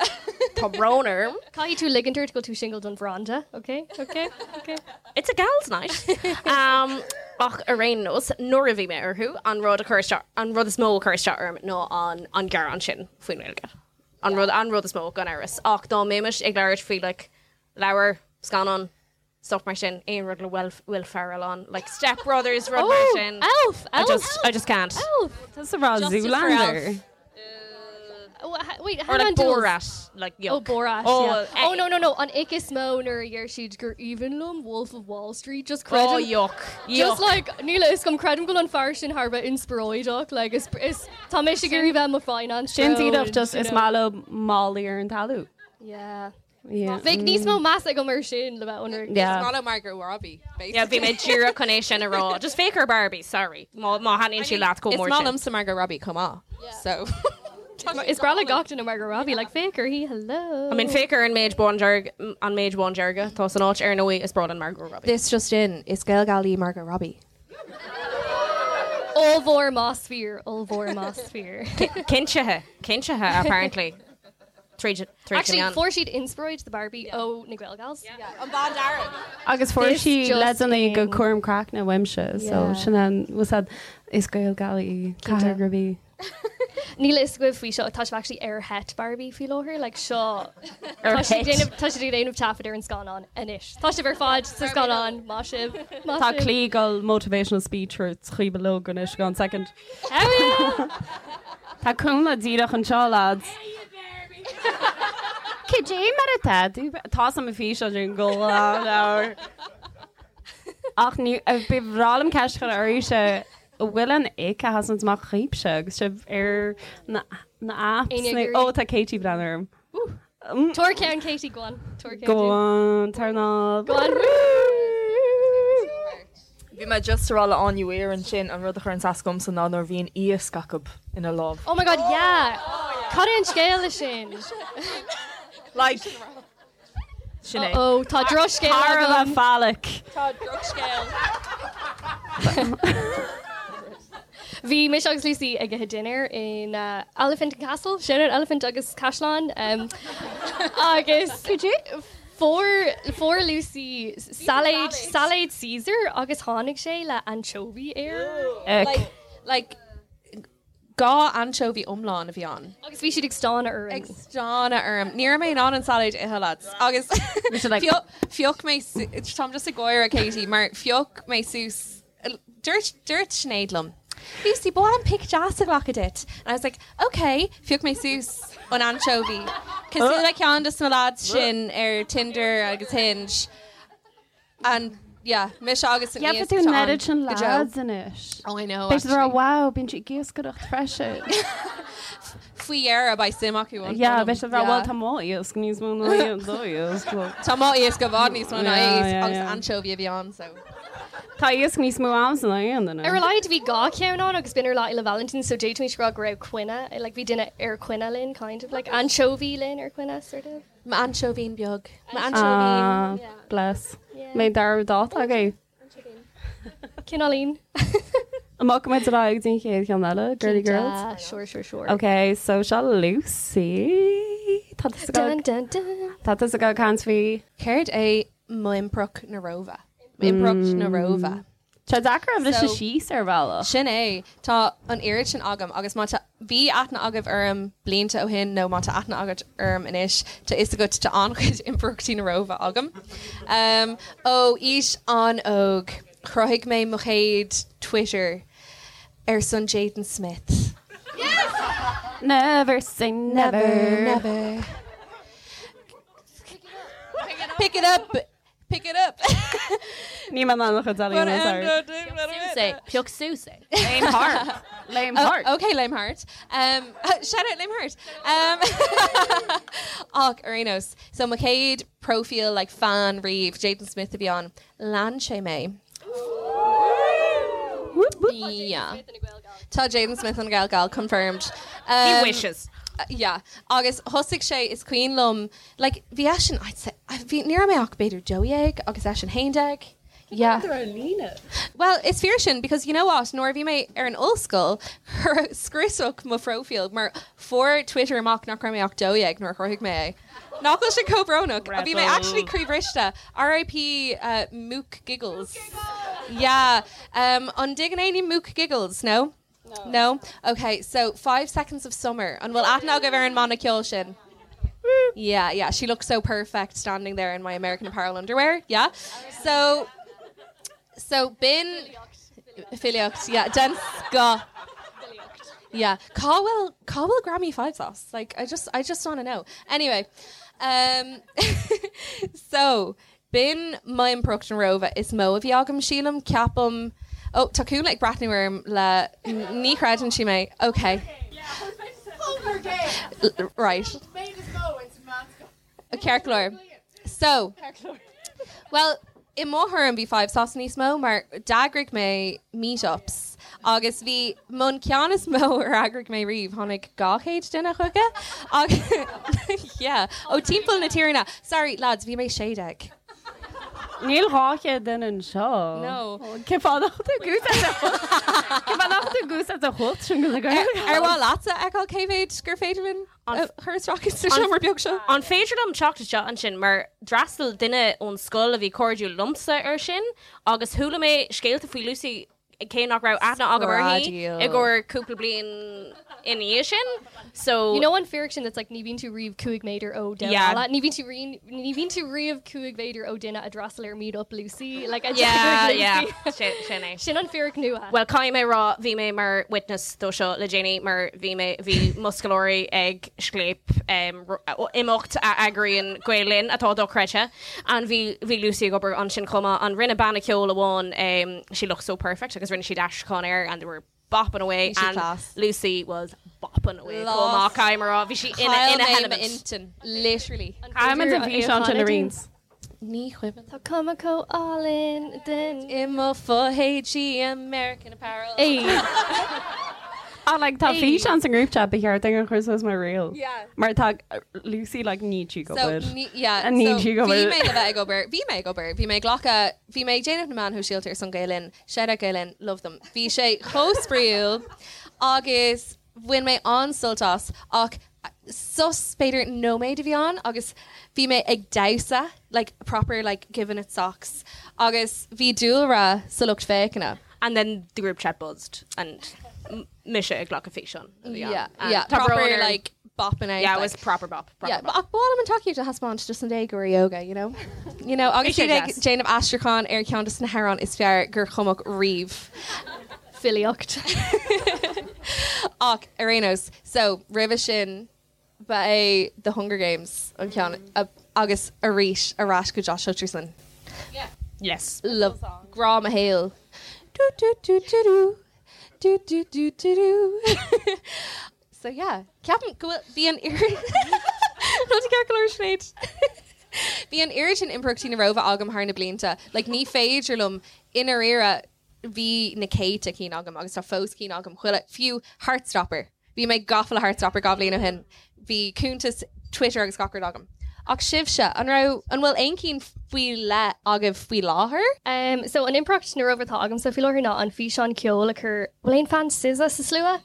Tá brón orm. Caithfidh tú ligint ort go bhfuil tú single don bhranda, okay? Okay? Okay. It's a gal's night. Um, ach ar aon nós nuair a bhí mé orthu an rud a chuir isteach an rud is mó a chuir isteach orm ná an an gearán sin faoin nGaeilge. An rud an rud is mó gan amhras. Ach dá mbeimis ag labhairt faoi like, leabhar, scannán, stuff mar sin, aon rud le Will, Will Ferrell ann, like Step Brothers rud mar Oh, sin. Elf, I Elf. just I just can't. Elf. That's a rá Justice for Zoolander. Elf. Oh, wait, Or hang like on, Jules. Borat, like yuck. Oh, Borat, Oh, yeah. eh, Oh, no, no, no. An ick is mó nuair a dheir siad gur aoibhinn liom Wolf of Wall Street, just Oh, creidim. yuck. Just Yuck. like, níl a fhios agam creidim go bhfuil an fear sin thar bheith inspioráideach, like, is, is, tá mé ag iarraidh bheith mo finance Sin bro díreach and, just you is know. maith leo málaí ar an talamh. Yeah. Yeah. Bheadh níos mó meas agam ar sin le bheith ionraic. Yeah. It's not Margot Robbie, basically. Yeah, bhí mé díreach chun é sin a rá. Just féach ar Barbie, sorry. Má má thaitníonn sí leat chomh Is mór maith sin. liomsa Margot Robbie chomh maith. So. Is breá le gach duine Margot Robbie, like, féach uirthi, hello. I mean, féach ar an méid bándearg an méid bándearga atá san áit ar ndóigh is breá liom Margot Robbie. This just in, is Gaelgalaí Margot Robbie. Ollmhór más fíor, ollmhór más fíor. Cinntithe, cinntithe apparently. Tríd tríd Actually, an fuair siad inspioráid do Barbie ó na Gael Gals. An bándearg. Agus fuair This sí just leideanna in. go cúram craicne uaimse, so Yeah. sin an was that is Gaelgalaí Cathair Robbie. Níl a fhios agaibh faoi seo, tá sibh actually ar sheit Barbie faoi láthair, like seo Ar tá siad ag sheit. déanamh tá siad ag déanamh taifead ar an scannán anois. Tá sibh ar fad sa scannán, maith sibh, maith Tá sibh. Claí ag dul motivational speech ar chaoi log anois go second. Tá cúnla díreach anseo lads. Cad é mar atá tú? Tá sam fís sin go leabhar. Ach ní ba bhreá liom ceist a chur oraibhse an bhfuil an ick a sheasann amach chugaibhse agus sibh ar na na apps Éinne nó ag ó iarraidh? tá Katie ag breathnú orm. Tabhair ceann Katie, go on. Tabhair ceann Go dúinn. on, turn off. Go on. Bhí mé just ag rá le Áine Weir ansin an rud a chuireann as domsa ná nuair a bhíonn iasc acu ina lámh. Oh my god, yeah! Cad é an scéal leis sin? Like, sin é. Oh, tá drochscéal Thar a agam. bheith phallic. Tá drochscéal. Bhí mise agus Lucy ag ithe dinnéar in uh, Elephant and Castle, sin an Elephant agus Caisleán. Um, agus fuair fuair Lucy sailéad sailéad Caesar agus tháinig sé le anchovy air. Like, like dhá anchovy iomlán a bhí ann. Agus bhí siad ag stánadh orm. Ag stánadh orm. Ní raibh mé in ann an sailéad a ithe lads. Agus phioc phioc mé su- táim just ag gáire Katie mar phioc mé suas dúirt dúirt Sinéad liom. Lucy, ba mhaith liom pic deas a ghlacadh duit. And I was like, okay, phioc mé suas an anchovy. Cosúil le ceann de na lads sin ar Tinder agus Hinge. And yeah, mise agus an Yeah, iasc tú atá an ann oiread sin go deo. lads anois. Oh, I know, Beidh siad ag rá actually. wow, bíonn sí ag iascaireacht freisin. Faoi dheireadh beidh suim acu ionam. Yeah, beidh siad ag rá Yeah. well tá mo iasc níos mó ná iad do iasc. Tá mo iasc i bhfad níos mó ná Yeah, iasc yeah, agus yeah. anchovy a bhí ann, so. Tá iasc níos mó agamsa ná aon duine. Ar a laghad bhí dhá cheann ann agus b'in ar Lá Fhéile Vailintín so d'fhéadfaimis rá go raibh coinne, like bhí duine ar coinne linn kind of like anchovy linn ar coinne sort of. M'ainseoibhín beag. Ah, M'ainseoibhín. bless. Mé dar dáta agaibh. Cineáilín. Amach muid ar aghaidh den chéad cheann eile, Girly Girls. Ah, sure, sure, sure. Ok, so seo Lucy. Tá tusa Dun, ag dun, dun. Tá tusa ag caint faoi. Céard é m'impireacht na Róimhe? M'impireacht na Róimhe. Tá deacair a bhriseadh So- síos ar bhealach. Sin é, tá an oiread sin agam agus má tá bhí aithne agaibh orm blianta ó shin nó má tá aithne agat orm anois, tá fhios agat tá an-chuid impireachtaí na Róimhe agam. Um, ó aois an-óg, chruthaigh mé mo chéad Twitter ar son Jaden Smith. Never say never. Never, never. Pick it up! Pick it up! Ní man an chud Suas Pioc suas é. Lame heart. Lame Oh, heart. okay, Lame Heart. Um, shout out Lame Heart. Um, ach ar aon nós. So mo chéad profile like fan riamh Jaden Smith a bhí ann. Lean sé mé. Yeah. Tá Jaden Smith an Gael confirmed. He Um, wishes. yeah. Agus thosaigh sé is cuimhin liom like bhí eisean I'd say bhí ní raibh mé ach b'fhéidir 12 agus eisean 11. Yeah. líne. Well, is fíor sin because you know what nuair a bhí mé ar an ollscoil scriosadh mo phróifíl mar fuair Twitter amach nach raibh mé ach 12 nuair a chruthaigh mé é. Nach bhfuil sé chomh brónach a bhí mé actually croíbhriste RIP uh, Mook Giggles. Yeah. Um, an dtuigeann éinne Mook Giggles, no? No. Okay, so 5 seconds of summer. An bhfuil aithne agaibh ar an mbanna ceoil sin? Yeah, yeah, she looks so perfect standing there in my American Apparel underwear. Yeah. So so b'in filíocht, yeah, den scoth. Yeah, cá bhfuil cá bhfuil Grammy 5 sauce. Like I just I just want to know. Anyway, um so b'in m'impireacht na Róimhe is mó a bhí agam sílim ceapaim ó tá Cúnla ag breathnú orm le ní chreideann sí mé. Okay. L- Right. Ceart go leor. So, Well, i mo thuairim bhí 5SOS níos mó mar d'eagraigh mé meetups agus bhí an ceann is mó ar eagraigh mé riamh tháinig 200 duine chuige agus yeah, ó timpeall na tíre. Sorry lads, bhí mé 16. Níl 200 duine anseo. No. Cé fáth nach tú gúsa a chut sin go Ar mhaith leatsa a fheiceáil cé mhéad gur féidir linn a chur isteach sa seomra beag seo? An féidir liom teacht isteach ansin mar d'fhreastail duine ón scoil a bhí cairdiúil liomsa ar sin agus chuala mé scéalta faoi Lucy cé nach raibh aithne agam uirthi Screadaíl. i gcomhair cúpla bliain ina dhiaidh sin. So You know an fíric sin that's like ní bhíonn tú riamh 5 méadar ó duine Yeah. eile. Ní bhíonn tú rí- ní bhíonn tú riamh 5 mhéadar ó duine a d'fhreastail ar Meet Up Lucy like a Yeah, d'eagraigh yeah. Lucy. Sin sin é. Sin an fíric nua. Well caithfidh mé rá bhí mé mar witness dó seo le déanaí mar bhí mé bhí mo scoláirí ag Scléip um, ro- imeacht a eagraíonn Gael Linn atá dochreidte and bhí bhí Lucy ag obair ansin chomh maith and rinne banna ceoil amháin um, she looked so perfect agus rinne siad aistriúchán air and they were bopping away Bhí sí and class. Lucy was bopping away Lost. chomh maith caithfidh mé rá bhí sí ina Chaill ina mé helement. m'intinn, literally. Caithfidh an físeán sin arís. Ní chuimhin. Tá cuma chomh álainn den I mo fho-éadaí American Apparel. Ey. Ah, like, tá Ey. físeán san group chat ba cheart dúinn a chur suas mar reel. Yeah. Mar tá Lucy like ní tú go So, bhfuil. ní, yeah, And ní so tú go bhí bhfuil. mé le bheith ag obair, bhí mé ag obair, bhí mé ag glacadh, bhí mé ag déanamh na meáin shóisialta ar son Gael Linn, shout out Gael Linn, love them. Bhí sé chomh spraíúil agus bhain mé an-sult as ach sos b'fhéidir nóiméad a bhí ann agus bhí mé ag damhsa, like proper like giving it socks agus bhí dúlra sa lucht féachana. And then the group chat buzzed and m- mise ag glacadh físeán a bhí ann. Yeah, And yeah, tá proper brón ar- like bopping out. Yeah, it like. was proper bop. Proper Yeah, bop. but ach b'áil liom an tacaíocht a thaispeáint just an day go yoga, you know? You know, agus Bhí sé siad ag deas. déanamh aistriúchán ar ceann de na hamhráin is fearr gur cumadh riamh. Filíocht. Ach ar aon nós, so roimhe sin ba é The Hunger Games an ceann a- agus arís ar ais go Josh Hutcherson. Yes. Love grá mo shaol. Do do do do do. Do do do do do. So yeah, ceapaim go bhfuil bhí an oiread Nó ceart go leor Sinéad. Bhí an oiread sin impireachtaí na Róimhe agam thar na blianta. Like ní féidir liom i ndáiríre bhí na céadta cinn agam agus tá fós cinn agam chuile fiú Heartstopper. Bhí mé gafa le Heartstopper 2 bhliain ó shin. Bhí cuntas Twitter agus gach rud agam. Ach sibhse, an raibh an bhfuil aon cinn faoi leith agaibh faoi láthair? Um, so an impireacht na Róimhe atá agamsa faoi láthair ná an físeán ceoil a chur bhfuil aon fan SZA sa slua?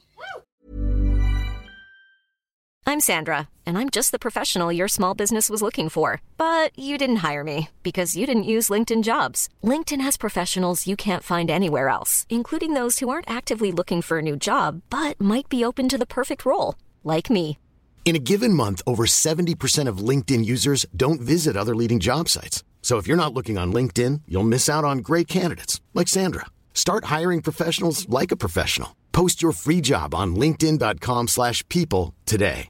I'm Sandra, and I'm just the professional your small business was looking for. But you didn't hire me because you didn't use LinkedIn jobs. LinkedIn has professionals you can't find anywhere else, including those who aren't actively looking for a new job but might be open to the perfect role, like me. In a given month, over 70% of LinkedIn users don't visit other leading job sites. So if you're not looking on LinkedIn, you'll miss out on great candidates like Sandra. Start hiring professionals like a professional. Post your free job on linkedin.com/people slash people today.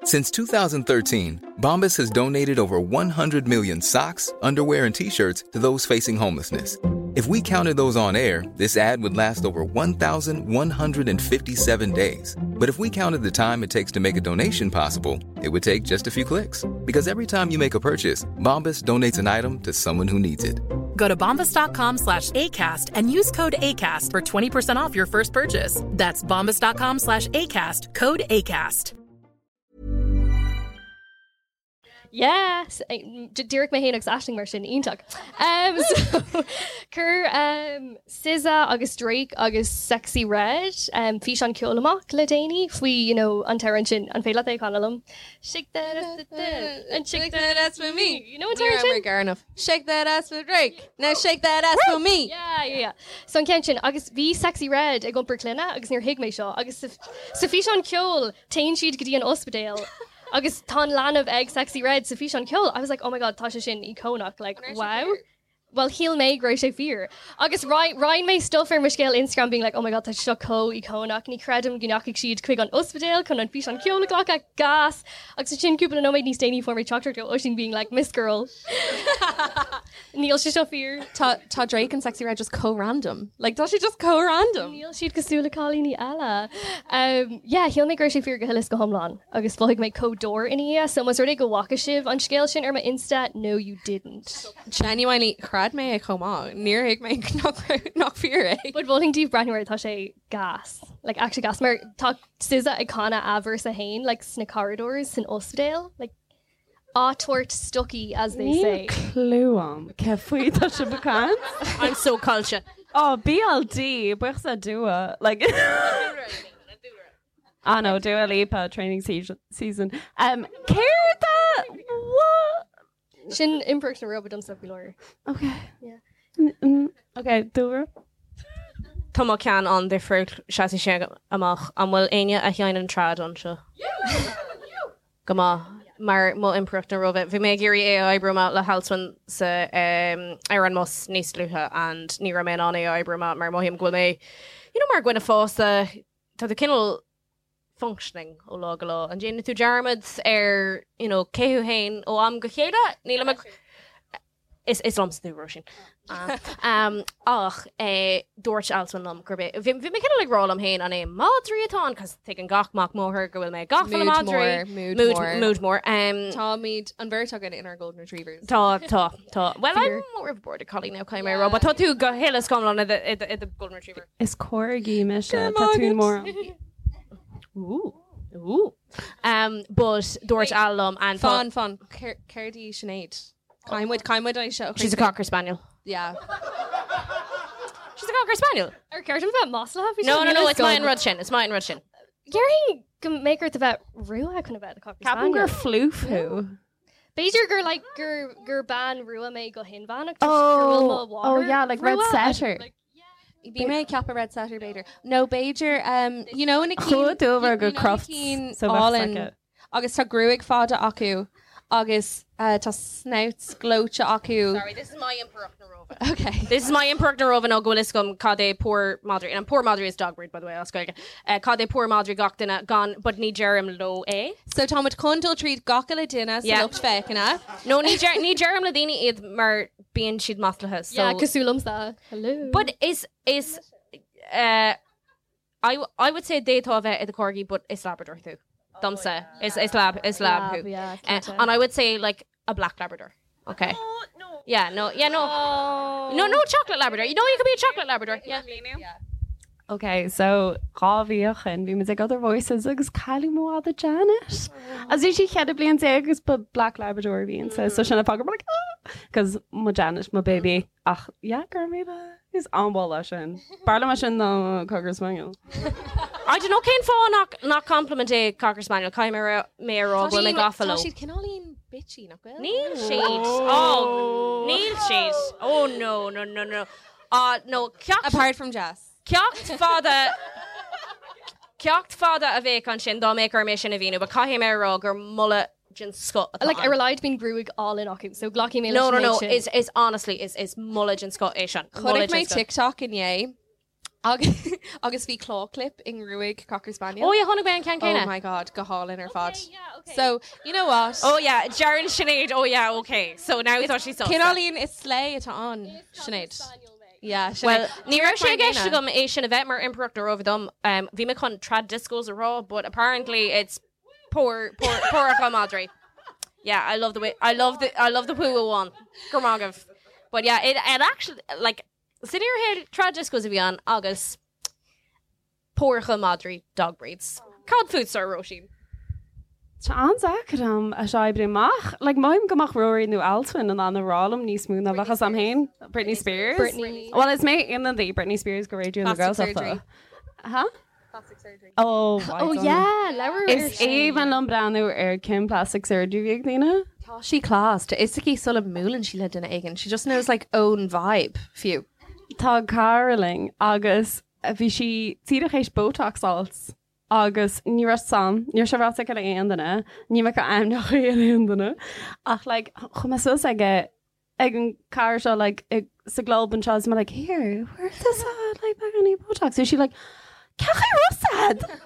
Since 2013, Bombas has donated over 100 million socks, underwear, and t shirts to those facing homelessness. If we counted those on air, this ad would last over 1,157 days. But if we counted the time it takes to make a donation possible, it would take just a few clicks. Because every time you make a purchase, Bombas donates an item to someone who needs it. Go to bombas.com slash ACAST and use code ACAST for 20% off your first purchase. That's bombas.com slash ACAST, code ACAST. Yes, Díreach mé féin agus Aisling mar sin iontach. Um, so, chuir um, SZA agus Drake agus Sexyy Red um, físeán ceoil amach le déanaí faoi you know, an t-amhrán sin an féidir leat é a chanadh liom. Shake that ass and shake that ass for me. You know an t-amhrán sin? Garnoff. Shake that ass for Drake. Now shake that ass for me. Yeah, yeah, yeah. So an ceann sin agus bhí Sexyy Red ag iompar clainne agus níor thuig mé seo agus sa sa físeán ceoil téann siad go dtí an ospidéal agus tá an leanbh ag Sexyy Red sa físeán ceoil. I was like, oh my god, tá sé sin íconach, like wow. Well, shíl mé go raibh sé fíor. Agus roinn mé stuff ar mo scéal Instagram being like, oh my god, tá seo chomh íconach, ní creidim go ndeachaigh siad chuig an ospidéal chun an físeán ceoil a ghlacadh gas. Agus ansin cúpla nóiméad níos déanaí fuair mé teachtaireacht ó Oisín being like, Miss Girl. Níl sé seo fíor. Tá tá Drake and Sexyy Red just chomh random. Like tá sé just chomh random. Níl siad cosúil le cailíní eile. Um, yeah, shíl mé go raibh sé fíor go huile is go hiomlán agus mhothaigh mé chomh dúr ina dhiaidh, so más rud é go bhfaca sibh an scéal sin ar mo Insta, no you didn't. Genuinely chreid mé é chomh maith. Níor thuig mé nach nach fíor é. But mholfainn daoibh breathnú air tá sé gas. Like actually gas mar tá SZA ag canadh a verse féin like sna corridors san ospidéal, like á tabhairt stocaí as they say. Níl clue agam cé faoi tá sibh ag caint. I'm so culture. Oh, BLD, buíochas le Dua. Like Ah no, Dua Lipa training season. season. Um, céard a what? Sin impireacht na Róimhe domsa faoi láthair. Okay. Yeah. Mm, mm, okay, Dúlra. Tá mo cheann an-difriúil, seasfaidh sé amach. An bhfuil éinne a sheinneann trad anseo? Go maith. Mar mo impireacht na Róimhe. Bhí mé ag iarraidh é a oibriú amach le hAlswyn sa ar an mbus níos luaithe and ní raibh mé in ann é a oibriú amach mar mothaím go bhfuil mé you know mar dhuine fásta tá tú cineál functioning ó lá go lá. An déanann tú dearmad ar you know cé thú féin ó am go chéile? Nílim ag Is is liomsa tú, Róisín. Um, ach eh, dúirt Alswyn liom gurb é bhí bhí mé cineál ag rá liom féin an é madraí atá ann, cos tuigeann gach mac máthar go bhfuil mé gafa le Mood madraí. mór, mood Mood mór. mood mór. Um, Táimid an bheirt againn inár Golden Retrievers. Tá, tá, tá. Well, Fear. I'm more of a border collie now, caithfidh mé a rá, but tá tú go huile is go hiomlán i do- i do- i do Golden Retriever. Is corgi mise, tá tú mór. Ooh, ooh. Um, but dúirt Al liom and tá- Fan, fan, céard í Sinéad? Caithfidh muid, caithfidh muid é seo. She's a cocker spaniel. Yeah. She's a cocker spaniel. Ar ceart dom bheith maslaithe? No, no, no, it's maith an rud sin, it's maith an rud sin. Déarfainn go mbeadh ort a bheith rua chun a bheith i do cocker Ceapaim spaniel. gur floof thú. B'fhéidir gur like gur gur bean rua mé go hinmheánach toisc gur bhfuil mo Oh, mháthair oh yeah, like red rua. setter. Bhí mé ag ceapadh red setter b'fhéidir. No b'fhéidir um, you know na cinn Chuaigh dúbhar you go know na Crufts, cinn so bheadh álainn soice. agus tá gruaig fada acu agus uh, tá snouts gleoite acu. Sorry, this is my impireacht na Róimhe. Okay. This is my impireacht na Róimhe nó go bhfuil fhios agam cad é pór madraí. And pór madraí is dog breed, by the way, as Gaeilge. Uh, cad é pór madraí gach duine gan, but ní deirim leo é. So táimid chun dul tríd gach uile duine sa Yeah. lucht féachana. No, ní deir- ní deirim le daoine iad mar bíonn siad maslaithe. So. Yeah, cosúil liomsa. Hello. But is is uh, I I would say d'fhéadfá a bheith i do corgi, but is Labrador tú. Domsa is is lab is lab Lab, thú. yeah, Uh, cinnte. and I would say like a black Labrador. Okay. no. Yeah, no, yeah, no. Oh. No, no chocolate Labrador. You know you could be a chocolate Labrador. Yeah. Ok, so 2 mhí ó shin bhí muid ag Other Voices agus cailleadh mo mhadra Janet. Agus bhí sí 14 bliain agus ba Black Labrador a bhí inti, so sin an fáth go raibh mé like ah! Cos mo Janet, mo baby, ach yeah, go raibh míle, is an-mholadh sin. B'fhearr liom é sin ná Cocker Spaniel. I don't know cén fáth nach nach compliment é Cocker Spaniel, caithfidh mé a mé a rá go bhfuil mé gafa Tá leo. siad cineáilín bitchy nach bhfuil? Níl siad. Oh, níl siad. Oh no, no, no, no. Ah, no, ceacht Apart from Jess. Ceacht fada Ceacht fada a bheadh ansin dá mbeadh orm é sin a mhíniú, but caithfidh mé a rá gur moladh den scoth atá Like ann. ar a laghad bíonn gruaig álainn acu, so glacfaidh mé leis No, no, an no, méid sin. is is honestly is is moladh den scoth é sin. Chonaic Moladh mé den scoth. TikTok inné agus agus bhí claw clip i ngruaig Cocker Spaniel. Oh yeah, chonaic mé an ceann céanna. Oh my god, go hálainn ar fad. So, you know what? Oh yeah, Jaron Sinead. Oh yeah, okay. So now tá sí sásta. Cineáilín is slay atá ann, Sinéad. Yeah, Sinéad. Well, ní raibh sé i gceist Díreach mar agam é sin a bheith mar impireacht na Róimhe dom. Um, bhí mé chun trad discos a rá, but apparently it's pór pór póracha madraí. Yeah, I love the way I love the I love the poo one. Go raibh maith agaibh. But yeah, it, it actually like san fhíorshaol trad discos a bhí ann agus póracha madraí dog breeds. Cad fútsa, Róisín? Tá an-deacair dom é seo a oibriú amach. Like, mothaím go mbeadh Ruairí nó Alswyn in ann a rá liom níos mó ná bheadh a fhios a'm féin. Britney Spears? Britney. Well, is mé ionadaí Britney Spears go Raidió na Plastic Gaeltachta. surgery. Huh? Plastic surgery. Oh, Oh yeah, labhair ar Is sin. aoibhinn liom breathnú ar cén plastic surgery a bhí ag daoine. Tá sí class. Tá fhios aici sula mbuaileann sí le duine éigin. She just knows like own vibe fiú. Tá cara linn agus bhí sí díreach théis Botox a fháilt agus ní raibh sam, ní raibh sé ráite aici le aon duine, ní bheadh ainmneacha ar aon duine ach like chuaigh mé suas aige ag an cara seo like ag sa gclub anseo is mé like here, where does that like beagáinín Botox? Bhí sí like cén chaoi a raibh a fhios a'd?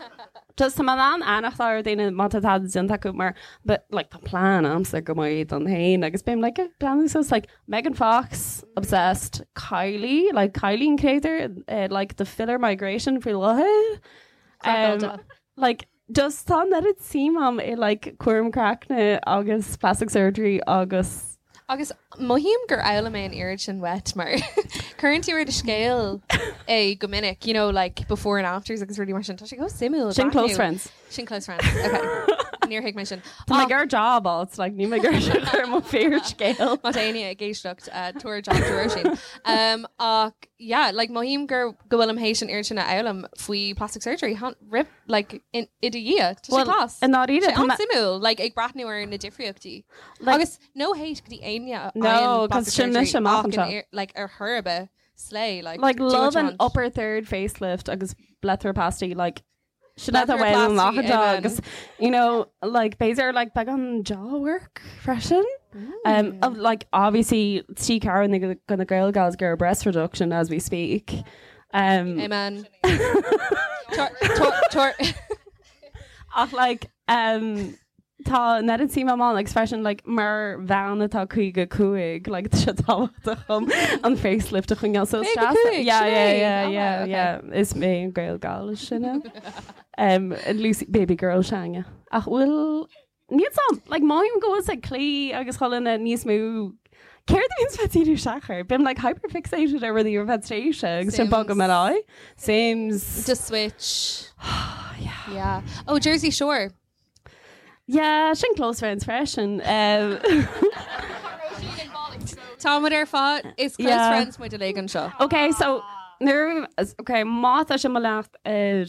Just tá mé in ann fanacht ar daoine má tá tada déanta acu mar but like tá plean a'msa go maith don fhéin agus bím like ag breathnú suas like Megan Fox obsessed Kylie like Kylie an creator uh, like the filler migration faoi láthair um, like just tá an oiread suim a'm i like cúram craicne agus plastic surgery agus Agus mothaím gur fhoghlaim mé an oiread sin uait mar cuireann tú ar do scéal é go minic, you know, like before and afters agus rudaí mar sin. Tá sé chomh suimiúil. Sin close breathnú. friends. Sin close friends. Okay. Níor thuig mé sin. Tá mé ag iarraidh job alt, like níl mé ag iarraidh seo chur mo fíorscéal. Má tá éinne ag éisteacht uh, tabhair job do Róisín. Um, ach yeah, like mothaím gur go bhfuilim théis an oiread sin a fhoghlaim faoi plastic surgery han, rip, like in, i do dhiaidh. Tá sé Well, class. i ndáiríre, Sé tá mé- an-suimiúil, like ag breathnú ar na difríochtaí. Like- Agus no hate go dtí éinne a No, fhaigheann 'cause plastic sin mise surgery amach ach in anseo. ar- like ar chor ar bith. Slay, like, Like do what love you an want. upper third facelift agus blepharoplasty like sin atá Blepharoplasty, uaim amach amen. agus you know like b'fhéidir like beagán jaw work freisin. Of, like obviously tí Karen gonna Gael gals go breast reduction as we speak. Amen. Tor, tor, tor. Ach like tá an oiread suim agam ann agus freisin like mar bhean atá 55 like tá sé tábhachtach dom an facelift a choinneáil so is deas 55, yeah yeah sin é. yeah Oh, yeah wow, okay. yeah is mé an Gael Gal is sine. Lucy baby girl s'againne. Ach bhfuil níl 's a'm like mothaím go bhfuil like claí agus chuile dhuine níos mó Céard a bhíonns bheith díriú isteach air? Bím like hyperfixated ar rudaí ar feadh tréimhse agus sin bogaim ar aghaidh. Sims. The Switch. Yeah. Yeah. Oh, Jersey Shore. Yeah, sin close friends freisin. Tá muid ar fad is close Yeah. friends muid uilig anseo. Ok, so nuair ok, má tá sibh ag mo leanacht ar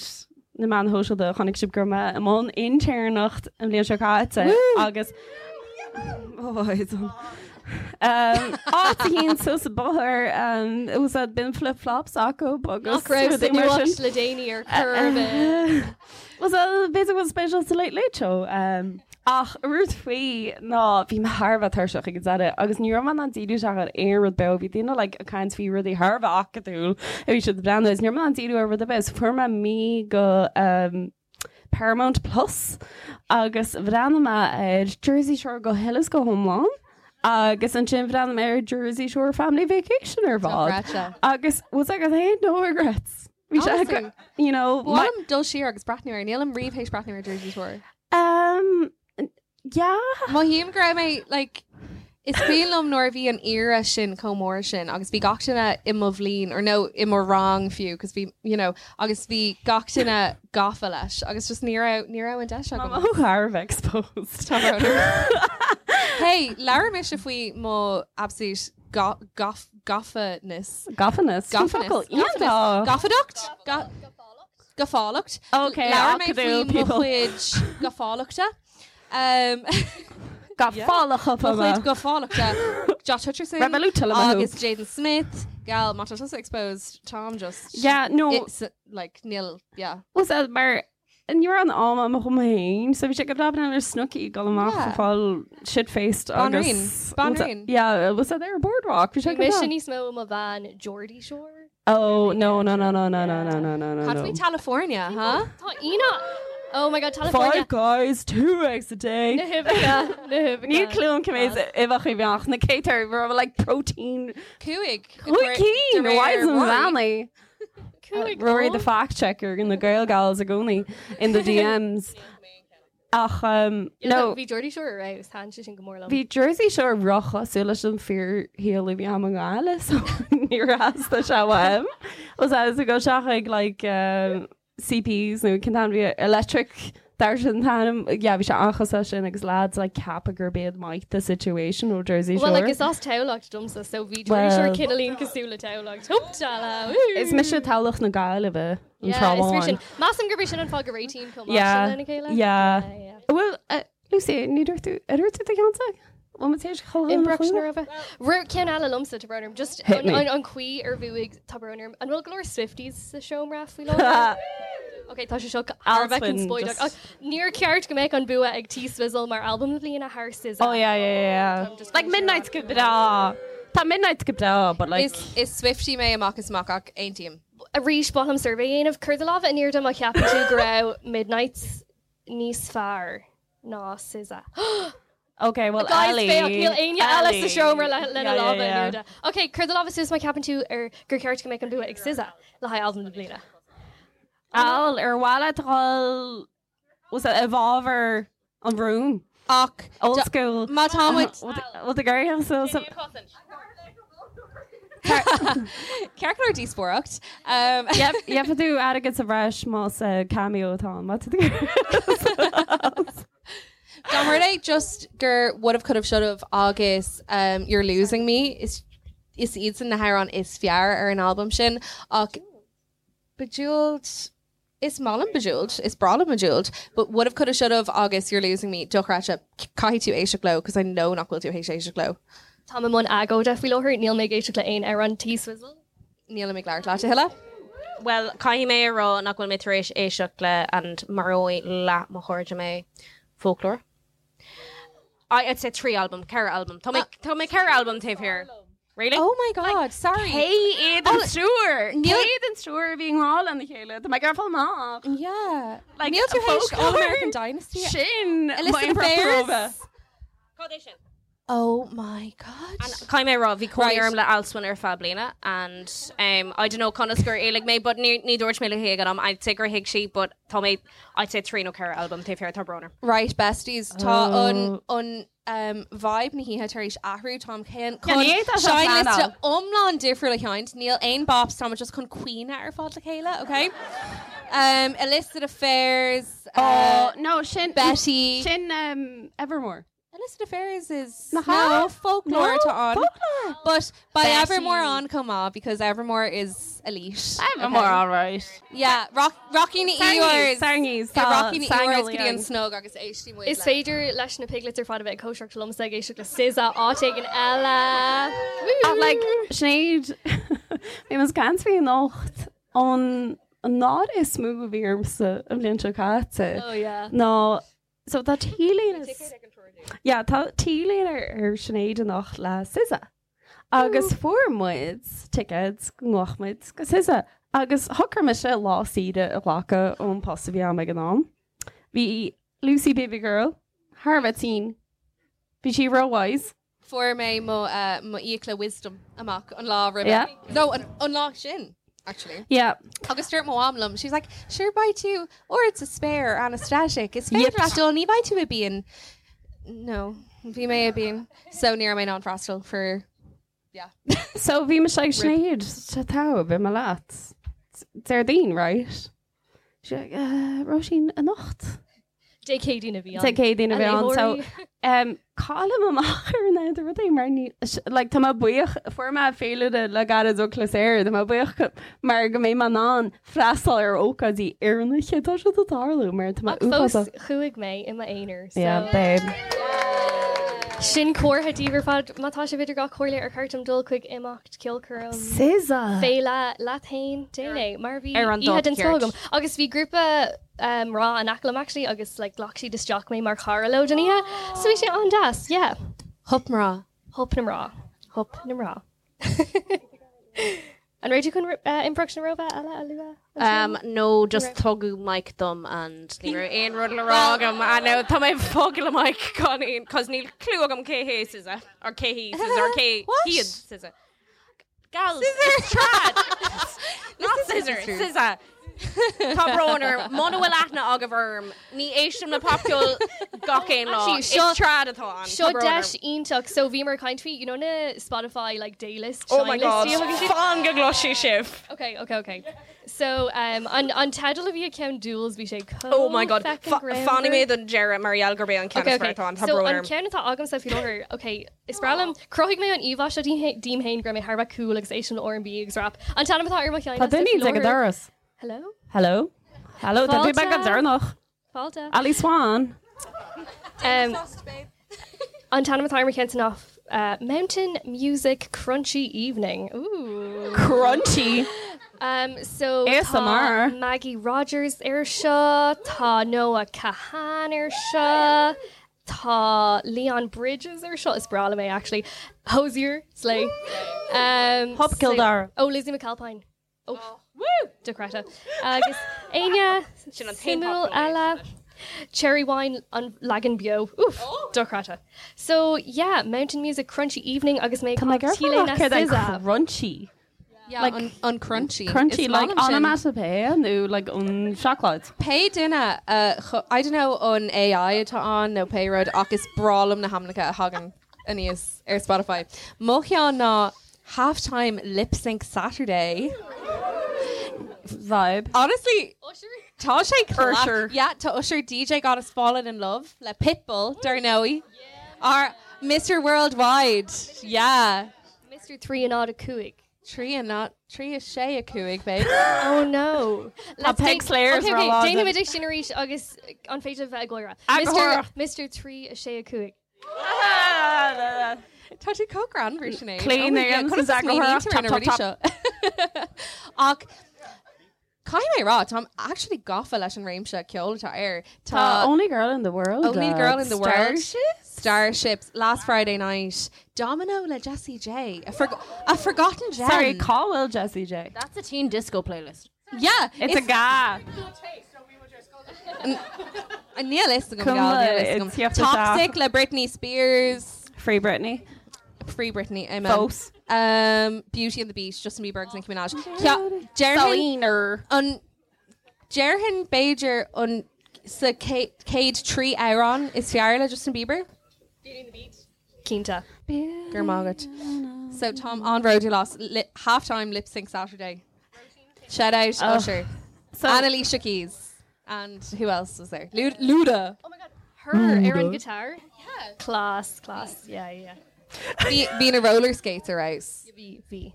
na meáin shóisialta chonaic sibh go raibh mé i mbun intéirneacht an bhliain seo caite agus áit éigin suas an bóthar was that bíonn flip flops acu agus Nach raibh sa rudaí mar nuacht sin. le déanaí ar chor ar bith. Was that b'fhéidir go bhfuil spéis sa Late Late Show. Ach rud faoi ná bhí mé thar a bheith tuirseach ag an deireadh agus ní raibh mé in ann díriú isteach ar aon rud beo. Bhí daoine like ag caint faoi rudaí thar a bheith acadúil a bhí siad ag breathnú agus ní raibh mé in ann díriú ar rud ar bith. So fuair mé mí go Paramount Plus agus bhreathnaigh mé ar Jersey Shore go huile is go hiomlán agus ansin bhreathnaigh mé ar Jersey Shore Family Vacation ar fad. Dochreidte. Agus was like, I had no regrets. Bhí sé Honestly. you know, Ba mhaith liom dul siar agus breathnú air. Nílim riamh théis breathnú ar Jersey Shore. Yeah. Mothaím go raibh mé like is cuimhin liom nuair a bhí an era sin chomh mór sin agus bhí gach duine i mo bhliain or no i mo rang fiú cos bhí you know agus bhí gach duine gafa leis agus just ní raibh ní raibh an deis agam. Ó thar a bheith exposed. Tá brón orm. Hey, labhair mise faoi mo absolute gaf gafaness. Gafaness? Sin Gafaness. focal iontach. Gafadacht? Gafálacht. Okay, Labhair mé acadúil faoi mo people. chuid gafálachta. Gafálacha Mo chuid gafálachta. Josh Hutcherson Revolut agus Jaden Smith. Gal, má tá tusa exposed, táim just Yeah, no. It's like níl, yeah. Was that mar ní raibh an am agam dom féin, so bhí sé go breá ar Snooki dul amach Yeah. a fáil shit-faced agus Banríon. Banríon. Yeah, was that there boardwalk? Bhí sé Bhí go mise breá. níos mó mo bhean Geordie Shore. Oh no no no no no no no no no no. Cad faoi California, huh? Tá ina Oh my god, California. Five guys, two eggs a day. Na huibheacha, na huibheacha. Níl clue agam cé mhéad uibheacha a bhí ann, na céadta raibh like protein. Cúig. Cúig cinn, why is Valley? Cúig Rory the fact checker in the Gael Gals i gcónaí in the DMs. Ach no Bhí Geordie Shore ar fheabhas, thaitin sé sin go mór liom. Bhí Jersey Shore róchosúil leis an fíorshaol a bhí agam i nGaillimh so níor theastaigh sé uaim. Was as a go seach like CPs nó cén t-ainm bhí electric dar sin t-ainm yeah bhí sé an-chosúil sin agus lads like ceapadh gurb iad Mike the situation ó Jersey Shore. Well, like, is as Tamhlacht domsa, so bhí Geordie Shore Well- cineáilín cosúil le Tamhlacht. Huptala! Is mise Tamhlacht na Gaillimhe an Yeah, tráth is fíor sin. amháin. Measaim gurb é sin an fáth go réitíonn chomh maith Yeah, sin lena chéile. yeah. Well, Lucy, ní dúirt tú ar dúirt tú do cheannsa? Bhfuil muid tar éis chomh Impreaction ar bheith. Rud ceann eile liomsa tá brón orm, just Hit an, me. an, an chaoi ar bhuaigh tá brón orm. An bhfuil go leor Swifties sa seomra faoi láthair? Ok, tá sé seo thar a bheith Alswyn, conspóideach. just- Ach níor cheart go mbeadh an bua ag T Swizzle mar album na bliana thar SZA. Oh yeah, yeah, yeah. yeah. Like Midnight's go breá. Tá Midnight's go breá, but like Is is Swiftie mé amach is amach ach aontaím. Arís ba mhaith liom suirbhé a dhéanamh cuir do lámh in airde má cheapann tú go raibh Midnights níos fearr ná SZA. Okay, well Guys, Ellie. féach, níl éinne eile sa Ellie. seomra le lena Yeah, yeah, lámha in yeah. airde. Ok, cuir do lámha suas má cheapann tú ar gur cheart go mbeadh an bua ag SZA le haghaidh album na bliana. Al ar mhaith leat dul was that i bhfabhar an rún? Ach old school. Má tá muid Bhfuil tú ag so so Ceart go leor díospóireacht. Yep, yep tú airgead sa bhreis más cameo atá ann. Má tá tú Dá mba rud é just gur would have could have should have agus You're Losing Me is is iad sin na hamhráin is fearr ar an albam sin ach Bejeweled is maith liom Bejeweled is breá liom Bejeweled but would have could have should have agus You're Losing Me dochreidte caithfidh tú éisteacht leo because I know nach bhfuil tú théis éisteacht leo. Tá mé i mbun agóide faoi láthair níl mé ag éisteacht le aon amhrán T Swizzle. Nílim ag labhairt leat a thuilleadh. Bhuel, caithfidh mé a rá nach bhfuil mé tar éis éisteacht le and maróidh leath mo chairde mé, Folklore. I'd say 3 albam, 4 albam. Tá mé tá mé 4 albam taobh thiar. Really? Oh my god, sorry. Cé iad an triúr? Cé iad an triúr a bhí i ngrá lena chéile? Tá mé ag iarraidh fáil amach. Yeah. Like, Níl tú théis Folklore? All American Dynasty? Sin Illicit mo Affairs? Affairs. Cad é sin? Oh my god. Caithfidh mé a rá, bhí cónaí Right. orm le Alswyn ar feadh bliana and um, I don't know conas gur éalaigh mé but ní, ní dúirt mé léi ag an am I'd say gur thuig sí but tá mé I'd say 3 nó 4 albam taobh thiar tá brón orm. Right, besties, tá Oh. an an um, vibe na hoíche tar éis athrú táim chun Yeah, ní fhéadfá seo a seinnliosta phleanáil. iomlán difriúil a sheinnt, níl aon bops táimid just chun caoineadh ar fad le chéile, okay? Um, Illicit Affairs, Oh, no, sin Betty. Sin um, Evermore. Illicit Affairs is Nach no ea? folklore No, atá ann. folklore. But by Betty. Evermore on chomh maith because Evermore is elite. Evermore, okay? all right. Yeah, rock, Rocky na Sarnies, Eeyores. Sarnies, Yeah, tá Rocky na Eeyores go dtí an Sangail snog agus éistí muid Is le. féidir leis na piglets ar fad a bheith ag cóisireacht liomsa ag éisteacht le SZA áit éigin eile. Ach like Sinéad bhí muid ag caint faoi anocht an an náire is mó a bhí ormsa an bhliain seo caite. Oh, yeah. Ná so tá T-léine Yeah, tá T-léine ar ar Sinéad anocht le SZA. Agus fuair muid tickets go ngabhfadh muid go SZA. Agus shocraigh mise lá saoire a ghlacadh ón post a bhí agam ag an am. Bhí Lucy Baby Girl thar a bheith tinn. Bhí sí ró-wise. Fuair mé mo uh, mo fhiacla wisdom amach an lá roimhe. Yeah. No, an, an lá sin, actually. Yeah. Agus dúirt mo mham liom, she's like, sure beidh tú ard sa spéir anaesthetic. Is féidir Yep. leat dul ní bheidh tú i bpian. No, bhí mé i bpian. So ní raibh mé in ann freastal for yeah. So bhí mise ag Sinéad tá tá beidh mé leat. Déardaoin, right? She like, uh, Róisín anocht. Dé Céadaoin a bhí ann. Dé Céadaoin a bhí ann. So léitheoirí. um, caillim amach ar an idir rudaí mar ní like, tá mé buíoch fuair mé féilire le gairid ó Chluasair, tá mé buíoch go- mar go mbeidh mé in ann freastal ar ócáidí oiriúnacha tá siad ag tarlú mar tá mé Ach fós uafásach. chuaigh mé i m'aonar. So Yeah, babe. Sin comhartha daoibh ar fad má tá sibh idir dhá chomhairle ar cheart dom dul chuig imeacht ceolchoirm SZA. Féile leat féin déan é mar bhí Ar an oíche dáta den scoth ceart. agam. Agus bhí grúpa mná in aice liom actually agus like ghlac siad isteach mé mar chara leo don oíche. So bhí sé an-deas, yeah. Hup mná. Hup na mná. Hup na mná. An raibh tú chun Impireacht na Róimhe eile a lua? Um, no, just tugadh mic dom and ní raibh aon rud le rá agam. I know, tá mé ag fágáil an mic gan aon, cos níl clue agam cé hé SZA, or cé hí SZA, or cé hiad SZA. Gals, it's trad. Not scissor, SZA. Tá brón orm, muna bhfuil aithne agaibh orm, ní éistim le popcheol gach aon lá. Actually, Is seo- trad atá ann. Seo Tá brón orm. deis iontach so bhíomar ag caint faoi you know na Spotify like daylist Oh my seinnlist God, a thugann siad? fan go gcloisfidh sibh. Okay, okay, okay. So um, an, an teideal a bhí ag ceann Duals bhí sé chomh Oh my God, feckin' Fa- greannmhar. fanfaidh mé don deireadh mar gheall gurb é an ceann Okay, is okay. fearr atá ann, tá So brón an orm. ceann atá agamsa faoi láthair, okay, is breá liom, chruthaigh mé an íomhá seo díom féin go raibh mé thar a bheith cool agus éistim le R&B agus rap. An t-ainm atá ar mo cheann Tá duine ag an doras. Hello? Hello? Hello, tá tú Fáilte. beag go deireanach. Fáilte. Ali Swan. Um, an t-ainm atá ar mo cheann ná uh, Mountain Music Crunchy Evening. Ooh. Crunchy. Um, so ASMR. tá Maggie Rogers ar seo, tá Noah Kahan ar seo, tá Leon Bridges ar seo is breá liom é actually. Hozier, Slay. Um, Hop Slay- Kildare. Oh, Lizzie McAlpine. Oh, woo! Dochreidte. Agus Aine Sin an t-aon suimiúil pop eile. Cherry Wine an leagan beo. Oof, dochreidte. So yeah, Mountain Music Crunchy Evening agus mé Tá mé ag Tíle na céard SZA. crunchy. Yeah, Like- an, an crunchy. Crunchy Is like maith liom sin. onomatopoeia nó like an seacláid. Pé duine uh, chu- I don't know an AI atá ann nó pé rud ach is breá liom na hainmneacha a thagann aníos ar Spotify. Mo cheann ná halftime lip sync Saturday. Vibe. Honestly, tá sé cla- Usher. Yeah, tá Usher DJ got us fallen in love le Pitbull, dar ndóigh. Our Mr. Worldwide. Yeah. Mr. 3 and odd a cúig. Trí and not trí a sé a cúig, babe. Oh no. Tá Peg Slayers Okay, ar okay. lá Déanfaidh den- muid sin arís agus an féidir bheith ag gáire. Agarthóireacht. Mr. 3 a sé a cúig. Tá tú chomh greannmhar, Sinéad. Clean Oh na Conas a smaoiníonn tú ar na rudaí seo? Ach caithfidh mé a rá, táim actually gafa leis an réimse ceoil atá air. Tá Only Girl in the World. Only Girl in the World. Starships? Starships. Last Friday Night. Domino le Jessie J. A, forg a forgotten gem. Sorry, cá bhfuil Jessie J. That's a teen disco playlist. Yeah. It's a ga. Níl fhios agam, Cuma, gal, níl fhios agam. it's you have to Toxic le Britney Spears. Free Britney. Free Britney, amen. Fós. Um, Beauty and the Beast, Justin Bieber agus Nicki Minaj. Déarfainn an déarfainn b'fhéidir an sa chéad 3 amhrán is fearr le Justin Bieber? Beauty and the Beat. Cinnte. Go raibh maith agat. So táim an-bhródúil as li half-time lip sync Saturday. Shout out Oh. Usher. So- and Alicia Keys. And who else was there? Lu Luda. Oh my god. Her ar an guitar. Yeah. Class, class. Yeah, yeah. Bhí bhí na roller skates ar fheabhas. Bhí bhí.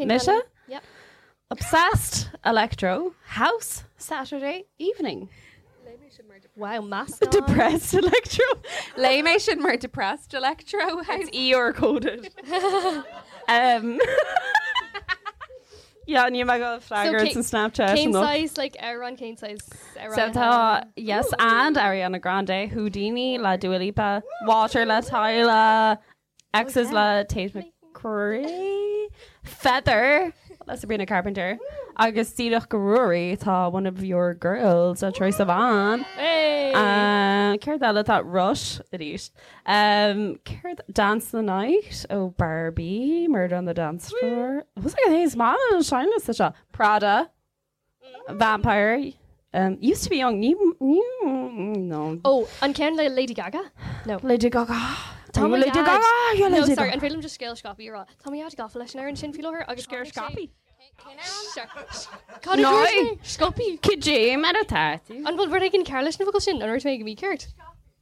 Mise? Yep. Obsessed Electro House Saturday evening. Wow, mask Depressed Electro. Léigh mé sin mar depressed electro house. It's ER coded. um, yeah, ní mé go freagairt an Snapchat. Cén nó. size like amhrán cén size amhrán So tá Yes and Ariana Grande, Houdini le Dua Lipa, Water le Tyla, Exes le Tate McRae, Feather le Sabrina Carpenter, agus Díreach go Ruairí tá one of your girls a Troye Sivan. Hey! Céard eile tá Rush arís. Um, céard Dance the Night ó Barbie, Murder on the Dance Floor. Was like is man an seinnliosta seo. Prada, Vampire, um, used to be young. Ní, ní, no. Oh, an ceann le Lady Gaga? No. Lady Gaga. Tá Are you Lady Gaga? You're No, Lady sorry, Gaga. an féidir liom just scéal scaipthe a rá. Tá mo dhaid gafa leis an amhrán sin faoi láthair agus Scéal scaipthe? Cad a No. dúirt mé? Scaipthe. Cad é mar atá tú? An bhfuil rud éigin cearr leis na focail sin? An dúirt mé go mícheart?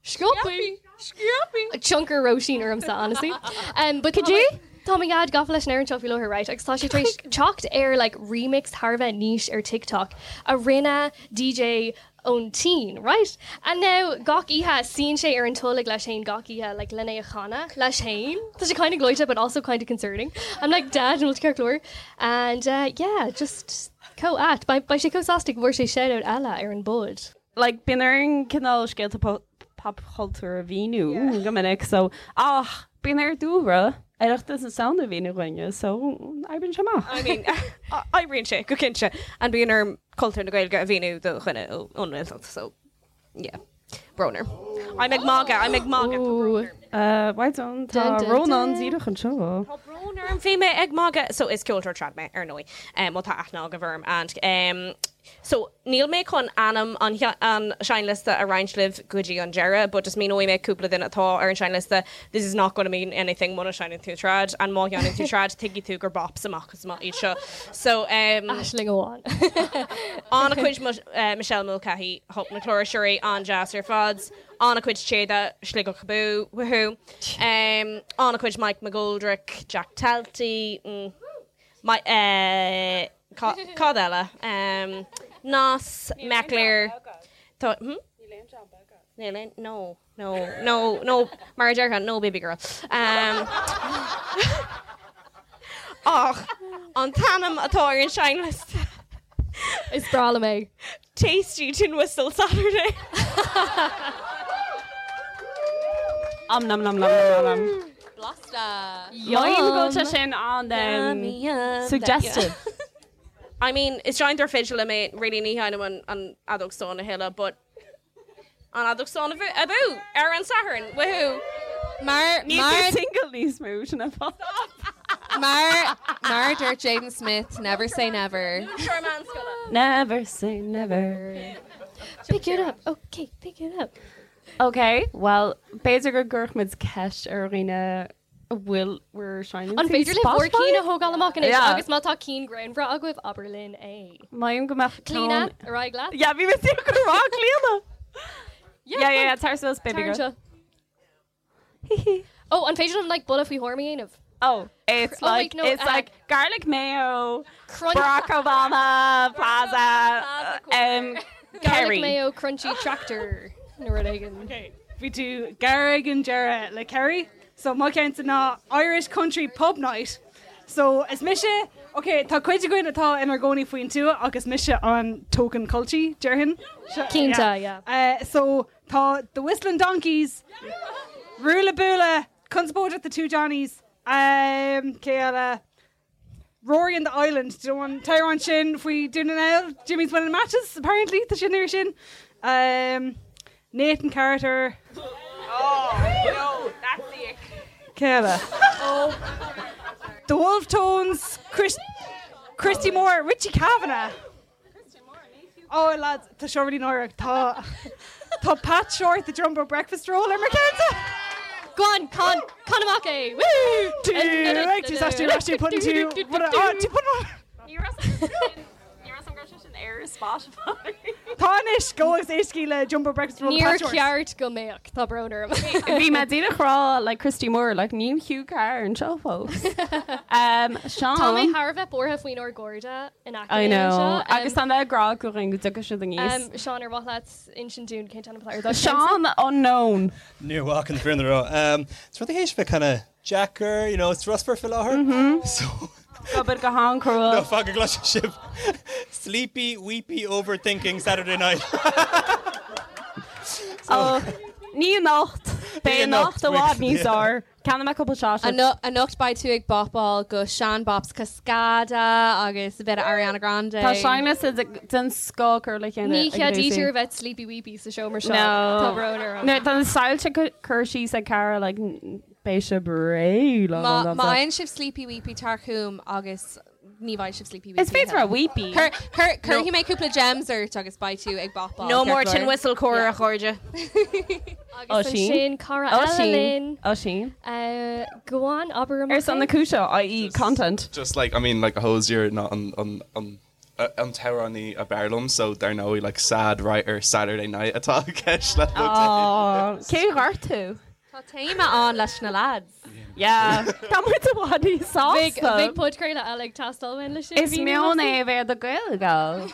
Scaipthe. Scaipthe. Tionchar Róisín ormsa, honestly. Um, but Could you? Tá mo dhaid gafa leis an amhrán seo faoi láthair, right? Agus tá sé tar éis teacht ar like remix thar a bheith niche ar TikTok a rinne DJ ón tSín, right? And now gach oíche suíonn sé ar an tolg leis féin gach oíche like lena a chanadh leis féin. Tá sé kind of gleoite but also kind of concerning. I'm like dad an bhfuil tú ceart go leor. And uh, yeah, just chomh ait. Beidh beidh sé chomh sásta go bhfuair sé shout-out eile ar an bpod. Like bíonn orainn cineál scéalta popchultúir a mhíniú go minic so ach bíonn ar Dúlra Oireachtas na Samhna a mhíniú dhúinne so oibríonn sé amach. I mean, oibríonn sé go cinnte and bíonn orm cultúr na Gaeilge a mhíniú do dhuine ón nGaeltacht so yeah. Brón orm. I'm ag magadh, I'm ag magadh. Tá brón orm. Uh, why don't tá Dun, dun, Rónán dun. díreach anseo. Tá brón orm bhí mé ag magadh so is ceoltóir trad mé ar ndóigh um, má tá aithne agaibh orm and um, So, níl mé chun ainm an an seinnliosta a roinnt libh go dtí an deireadh, but just míneoidh mé cúpla duine atá ar an seinnliosta, this is not gonna mean anything muna seinneann tú trad, and má sheinneann tú trad, tuigfidh tú gur bops amach is amach iad seo. So, um, Aisling amháin. an-chuid Michelle Mulcahy, Hup na Cláirseoirí, an-deas ar fad, an-chuid Téada, Sligeach Abú, woohoo, um, an-chuid Mike McGoldrick, Jack Talty, mm, my, eh, Cad eile? Nas, Meckler. Tá, hm? Níl aon, no, no, no, no, mar a déarfá, no baby girl. Ach, an t-ainm atá ar an seinnliosta. Is breá liom é. Tasty Tin Whistle Saturday. Om nom nom nom nom nom. Blasta. Yum go bhfuil sé sin an Yum, suggestive. I mean, is seinnteoir fidle mé, really ní sheinnim an an fheadóg stáin a thuilleadh, but an fheadóg stáin abú ar an Satharn, woohoo! Mar Níl mar tú single níos mó sin an fáth. mar mar dúirt Jaden Smith, never say never. Never say never. Pick it up. Okay, pick it up. Ok, well, b'fhéidir go gcuirfidh muid ceist ar dhaoine a bhfuil bhur seinneann An féidir libh bhur cinn a thógáil amach anois Yeah. agus má tá cinn greannmhara agaibh, abair linn é. Maím go mbeadh Clíona, ceann- ar aghaidh leat. Yeah, bhí mé ag rá Clíona. Yeah, Yeah, yeah, yeah, tar suas, baby Tar girl. anseo. Oh, an féidir liom like buille faoi thuairim a dhéanamh? Oh, it's Oh, wait, like, no, it's uh, like garlic mayo, Crunch- Barack Obama, Plaza, um, Garlic Kerry. mayo crunchy tractor nó rud éigin. Bhí tú gar ag an deireadh le Kerry. So mo cheannsa ná Irish Country Pub Night. So is mise, ok, tá cuid againn atá inár gcónaí faoin tuath ach is mise an token culchie, déarfainn. Cinnte, yeah. So tá The Whistling Donkeys, Rula Bula, Conspóideach The Two Johnnies, cé eile? Rory and the Island, do you know an t-amhrán sin faoi Dún na nGall? Jimmy's Winning Matches, apparently, tá sin ar sin. Um, Nathan Carter. Oh, no, that's the ick. Cé eile? Oh. The Wolfe Tones, Chris, Christy Moore, Richie Kavanagh. Oh lads, tá seo really náireach. Tá Tá Pat Shortt the Jumbo Breakfast Roll ar mo cheannsa. Go on, can, can amach é! Woo! Tú ag tú tú tú put tú tú put Ní raibh an sin ar Spotify. Tá anois go agus éistigí le Jumbo Breakfast Roll Níor cheart go mbeadh, tá brón orm. Bhí mé díreach ag rá like Christy Moore like níl Hugh Carr anseo fós. Um, Seán. Tá mé thar a bheith buartha faoinár gcairde in aice I linn know. anseo. Um, Agus tá mé ag rá go go dtiocfaidh siad aníos. Um, Seán ar mhaith leat insint dúinn cén t-ainm atá ar do cheannsa? Seán unknown. Níor mhaith an fírinne a rá. Um, Is rud a théis bheith kind of deacair, you know, it's rusfar faoi láthair. So Obair go han-chrua. No, fan go gcloisfidh sibh. Sleepy, weepy, overthinking Saturday night. Oh, ní anocht. Beidh anocht i bhfad níos fearr. Ceannaigh mé cúpla sausage. Anocht beidh tú ag bopáil go sean-bops Cascada agus a bit of Ariana Grande. Tá seinnliosta den scoth curtha le chéile Ní ag cheadaítear Lucy. a bheith sleepy weepy sa seomra seo. No. Tá brón orm. No, tá na soilse curtha síos ag Cara like beidh sibh réidh lá Má lá má lá. fhaigheann sibh sleepy weepy tar chugam agus ní bheidh sibh sleepy weepy. Is féidir a weepy. Cur cur cuirfidh mé cúpla gems ort agus beidh tú ag bopáil. No ceart more go tin leor. whistle core a chairde. Agus ansin cara eile linn. Oisín. Go on, abair amach Ar son na é. cúise, i.e. content. Just like, I mean, like Hozier ná an an an an t-amhránaí ab fhearr liom, so dar ndóigh like sad writer Saturday night atá i gceist le Aww, cé ghort tú? Tá téama ann leis na lads. Yeah. Tá muid i bhfad níos sásta. Bheadh podchraoladh eile ag teastáil uainn leis sin. Is meon é a bheith do Gaelgals.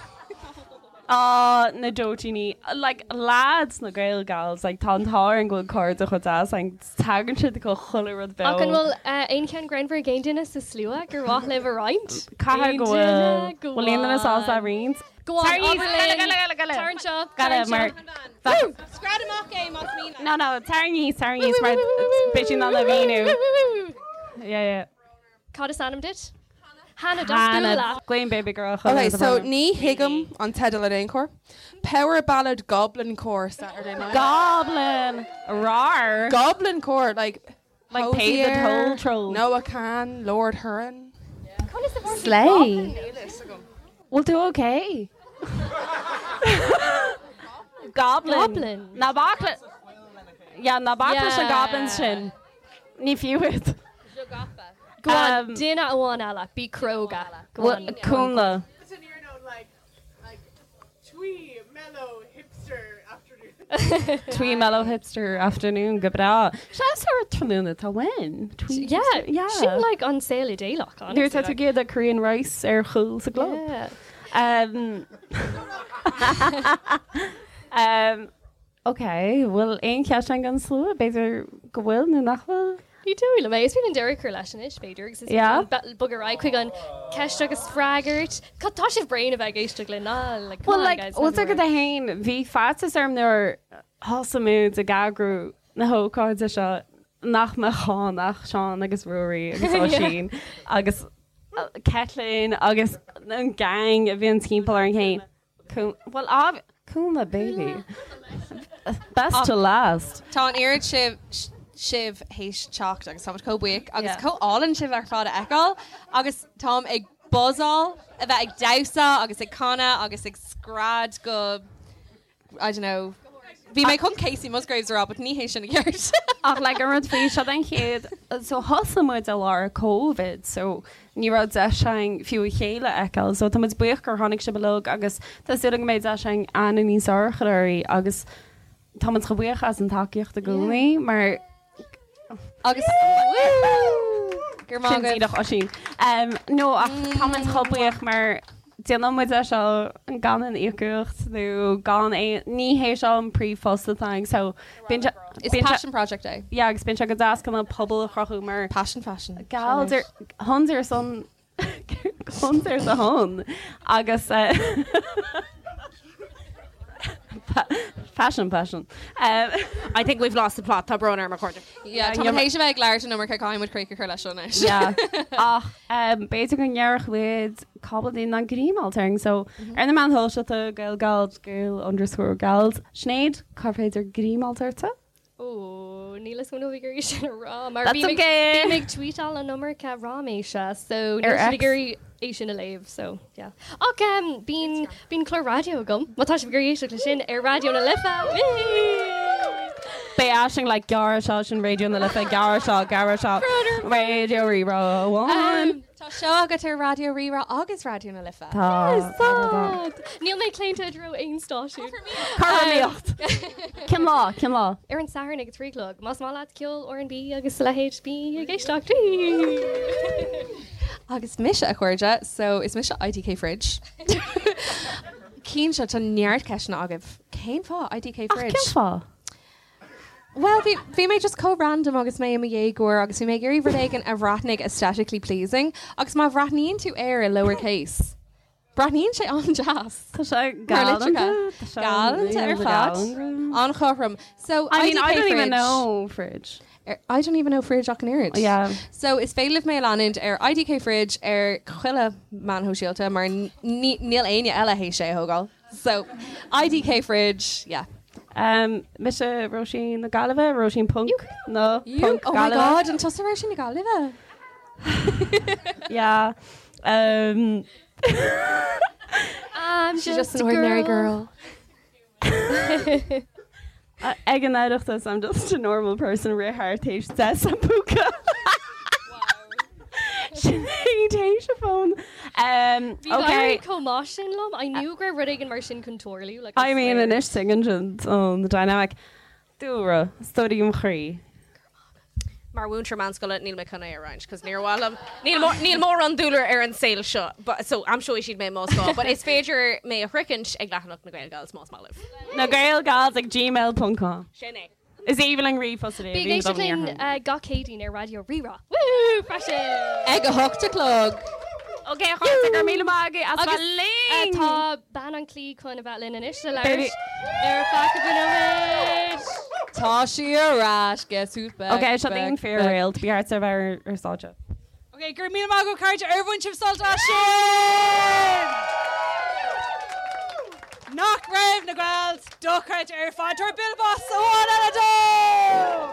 Á, na dóitíní. Like, lads na Gaelgals, like, tá an t-ádh orainn go bhfuil cairde chomh deas againn, tagann siad go chuile rud beo. Ach an bhfuil aon cheann greannmhar ag aon duine sa slua gur mhaith libh a roinnt? Caithfidh go Aon bhfuil. duine? Go Bhfuil aon duine sásta a on. roinnt? Go on, Tar abair linn. Gale, gale, gale. Tar anseo, tar Gale, anseo. mar. Scread amach é más mian leat. No, no, tar aníos, tar aníos, mar beidh sí in ann a mhíniú. Yeah, yeah. Cad is ainm duit? Hannah Hannah, Doscúla. Glaoim baby girl. Okay, so ní thuigim an teideal in aon chor. Power Ballad Goblin Core Saturday night. Goblin! Rar! Goblin Core, like Like pay the Hozier, toll troll. Noah Kahan, Lord Huron. Slay. We'll do okay. Goblin. Goblin. Ná bac le Yeah, ná bac leis na Yeah. goblins sin. Ní fiú iad. Go on, duine amháin eile, bí cróga. Go on. Cúnla. Twee, mellow, hipster afternoon. Twee mellow hipster afternoon go breá. Se ar tráthnóna tá win. Twee Yeah, hipster- yeah. Sin like an saol idéalach, Nuair honestly. tá tú ag ithe Korean rice ar chúl sa gclub. Yeah. Um, um, okay, bhfuil aon cheist an slua, b'fhéidir go bhfuil nó nach bhfuil? Ní dóigh liom é. Is féidir an deireadh a chur leis anois, b'fhéidir, agus is Yeah. bogadh ar aghaidh chuig an ceist agus freagairt. Cad tá sibh bréan a bheith ag éisteacht linn ná like, come Well, on, like, guys, bhfuil never go worry. hain, bhí faitíos orm nuair thosaigh muid ag eagrú na hócáide seo nach mbeadh ann ach Seán agus Ruairí agus Oisín agus Caitlín agus an gang a bhíonn timpeall orainn féin. Well, ob- Cúnla baby. Best to last. Tá an oiread sibh sibh théis teacht agus táimid chomh buíoch agus Yeah. chomh álainn sibh ar fad a fheiceáil agus táim ag buzzáil a bheith ag damhsa agus ag canadh agus ag scread go I don't know. Bhí mé chun Kacey Musgraves a rá, but ní hé sin i gceart. Ach like an rud faoi seo den chéad so thosaigh muid i lár COVID so ní raibh deis againn fiú a chéile a fheiceáil so tá muid buíoch gur tháinig sibh uilig agus tá súil agam go mbeidh deis againn aithne níos fearr a chur oraibh agus tá muid chomh buíoch as an tacaíocht i gcónaí mar agus Gur Sin díreach Oisín. Um, no ach tá muid chomh buíoch mar déanann muid é seo gan aon íocaíocht nó gan aon, ní hé seo an príomhphost atá againn so bíonn sé, Is passion project é. Yeah agus bíonn sé go deas chun an pobal a chruthú mar Passion fashion. Gals ar, tons ar son, tons ar do shon agus eh Fashion, passion. I think we've lost the plot, tá brón orm a chairde. Yeah, tá muid théis a bheith ag labhairt an iomarca caithfidh muid críoch a chur leis seo anois. Yeah. Ach b'fhéidir go ndéarfadh muid cúpla duine nach ngreamáilt orainn so ar na meáin shóisialta Gael Gals Gael underscore Gals. Sinéad, cár féidir greamáilt ortsa? Ó, níl a fhios agam an bhfuil mé ag iarraidh sin a rá mar That's bím ag okay. bím ag tweetáil an iomarca ráiméise so níl Ar siad ag X. iarraidh é sin a léamh so yeah. Ach um, bíonn bíonn clár raidió agam má tá sibh ag iarraidh éisteacht leis sin ar Raidió na Life. Beidh Aisling like gearr seo sin Raidió na Life gearr seo gearr seo Raidió Rí-Rá amháin. Tá seó agat ar Raidió Rí-Rá agus Raidió na Life. Tá. Tá. Níl mé claonta i dtreo aon stáisiún. Cothromaíocht. Cén lá? Cén lá? Ar an Satharn ag a 3 a chlog. Más maith leat ceol R&B agus a leithéid, bí ag éisteacht. Agus mise a chairde, so is mise IDK Fridge. Cinnte, tá neart ceisteanna agaibh. Cén fáth IDK Fridge? Ach cén fáth? Bhuel, bhí, bhí mé just chomh random agus mé i mo dhéagóir agus bhí mé ag iarraidh rud éigin a bhreathnaigh aesthetically pleasing agus má bhreathnaíonn tú air i lowercase, breathnaíonn sé an-deas. Tá sé Mar galánta. litreacha. Tá sé Galánta ar fad. galánta. An-chothrom. So, I mean, IDK I don't even Fridge. know fridge. Ar, I don't even know fridge ach an oiread. Yeah. So is féidir libh mé a leanúint ar IDK Fridge ar chuile meán shóisialta mar ní, níl éinne eile théis é a thógáil. So, IDK Fridge, yeah. Um, mise Róisín na Gaillimhe, Róisín Punk nó You, Punk oh my Gaillimhe. God, an tusa Róisín na Gaillimhe? Yeah. Um, I'm She's just an ordinary girl. Ag an Oireachtas, I'm just a normal person rith thart théis deis an púca. Sinéad théis a fón. Um, Bhí okay. éirí chomh maith sin liom. I knew go raibh rud éigin mar sin chun tarlú. Like, I mean, swear. anois tuigeann an the dynamic. Dúlra, story im chroí. Mar mhúinteoir meánscoile níl mé chun é a roinnt, cos níor mhaith liom, níl mór, níl mórán dúlra ar an saol seo, but, so aimseoidh siad mé más gá, but is féidir mé a shroichint ag leathanach na Gael Gals más maith libh. Na Gael Gals ag gmail ponc com. Sin é. Is aoibhinn linn ríomhphost Bí ag éisteacht linn gach Céadaoin ar Raidió Rí-Rá. Woo! Freisin! Ag a hocht a chlog. Ok, a chairde, go raibh míle maith agaibh as Agus bheith linn! tá bean an chliath chun a bheith linn anois le Baby. labhairt ar feadh cúpla nóiméad. Tá sí ar ais, guess who's back? Ok, seo back, daoine back. fíor-réalt, bí thart ar bheith ar stáitse. Ok, go raibh míle maith agaibh cairde ar bhain sibh sult as sin! Nach raibh na Gals dochreidte ar fad tabhair bualadh bos amháin eile dóibh!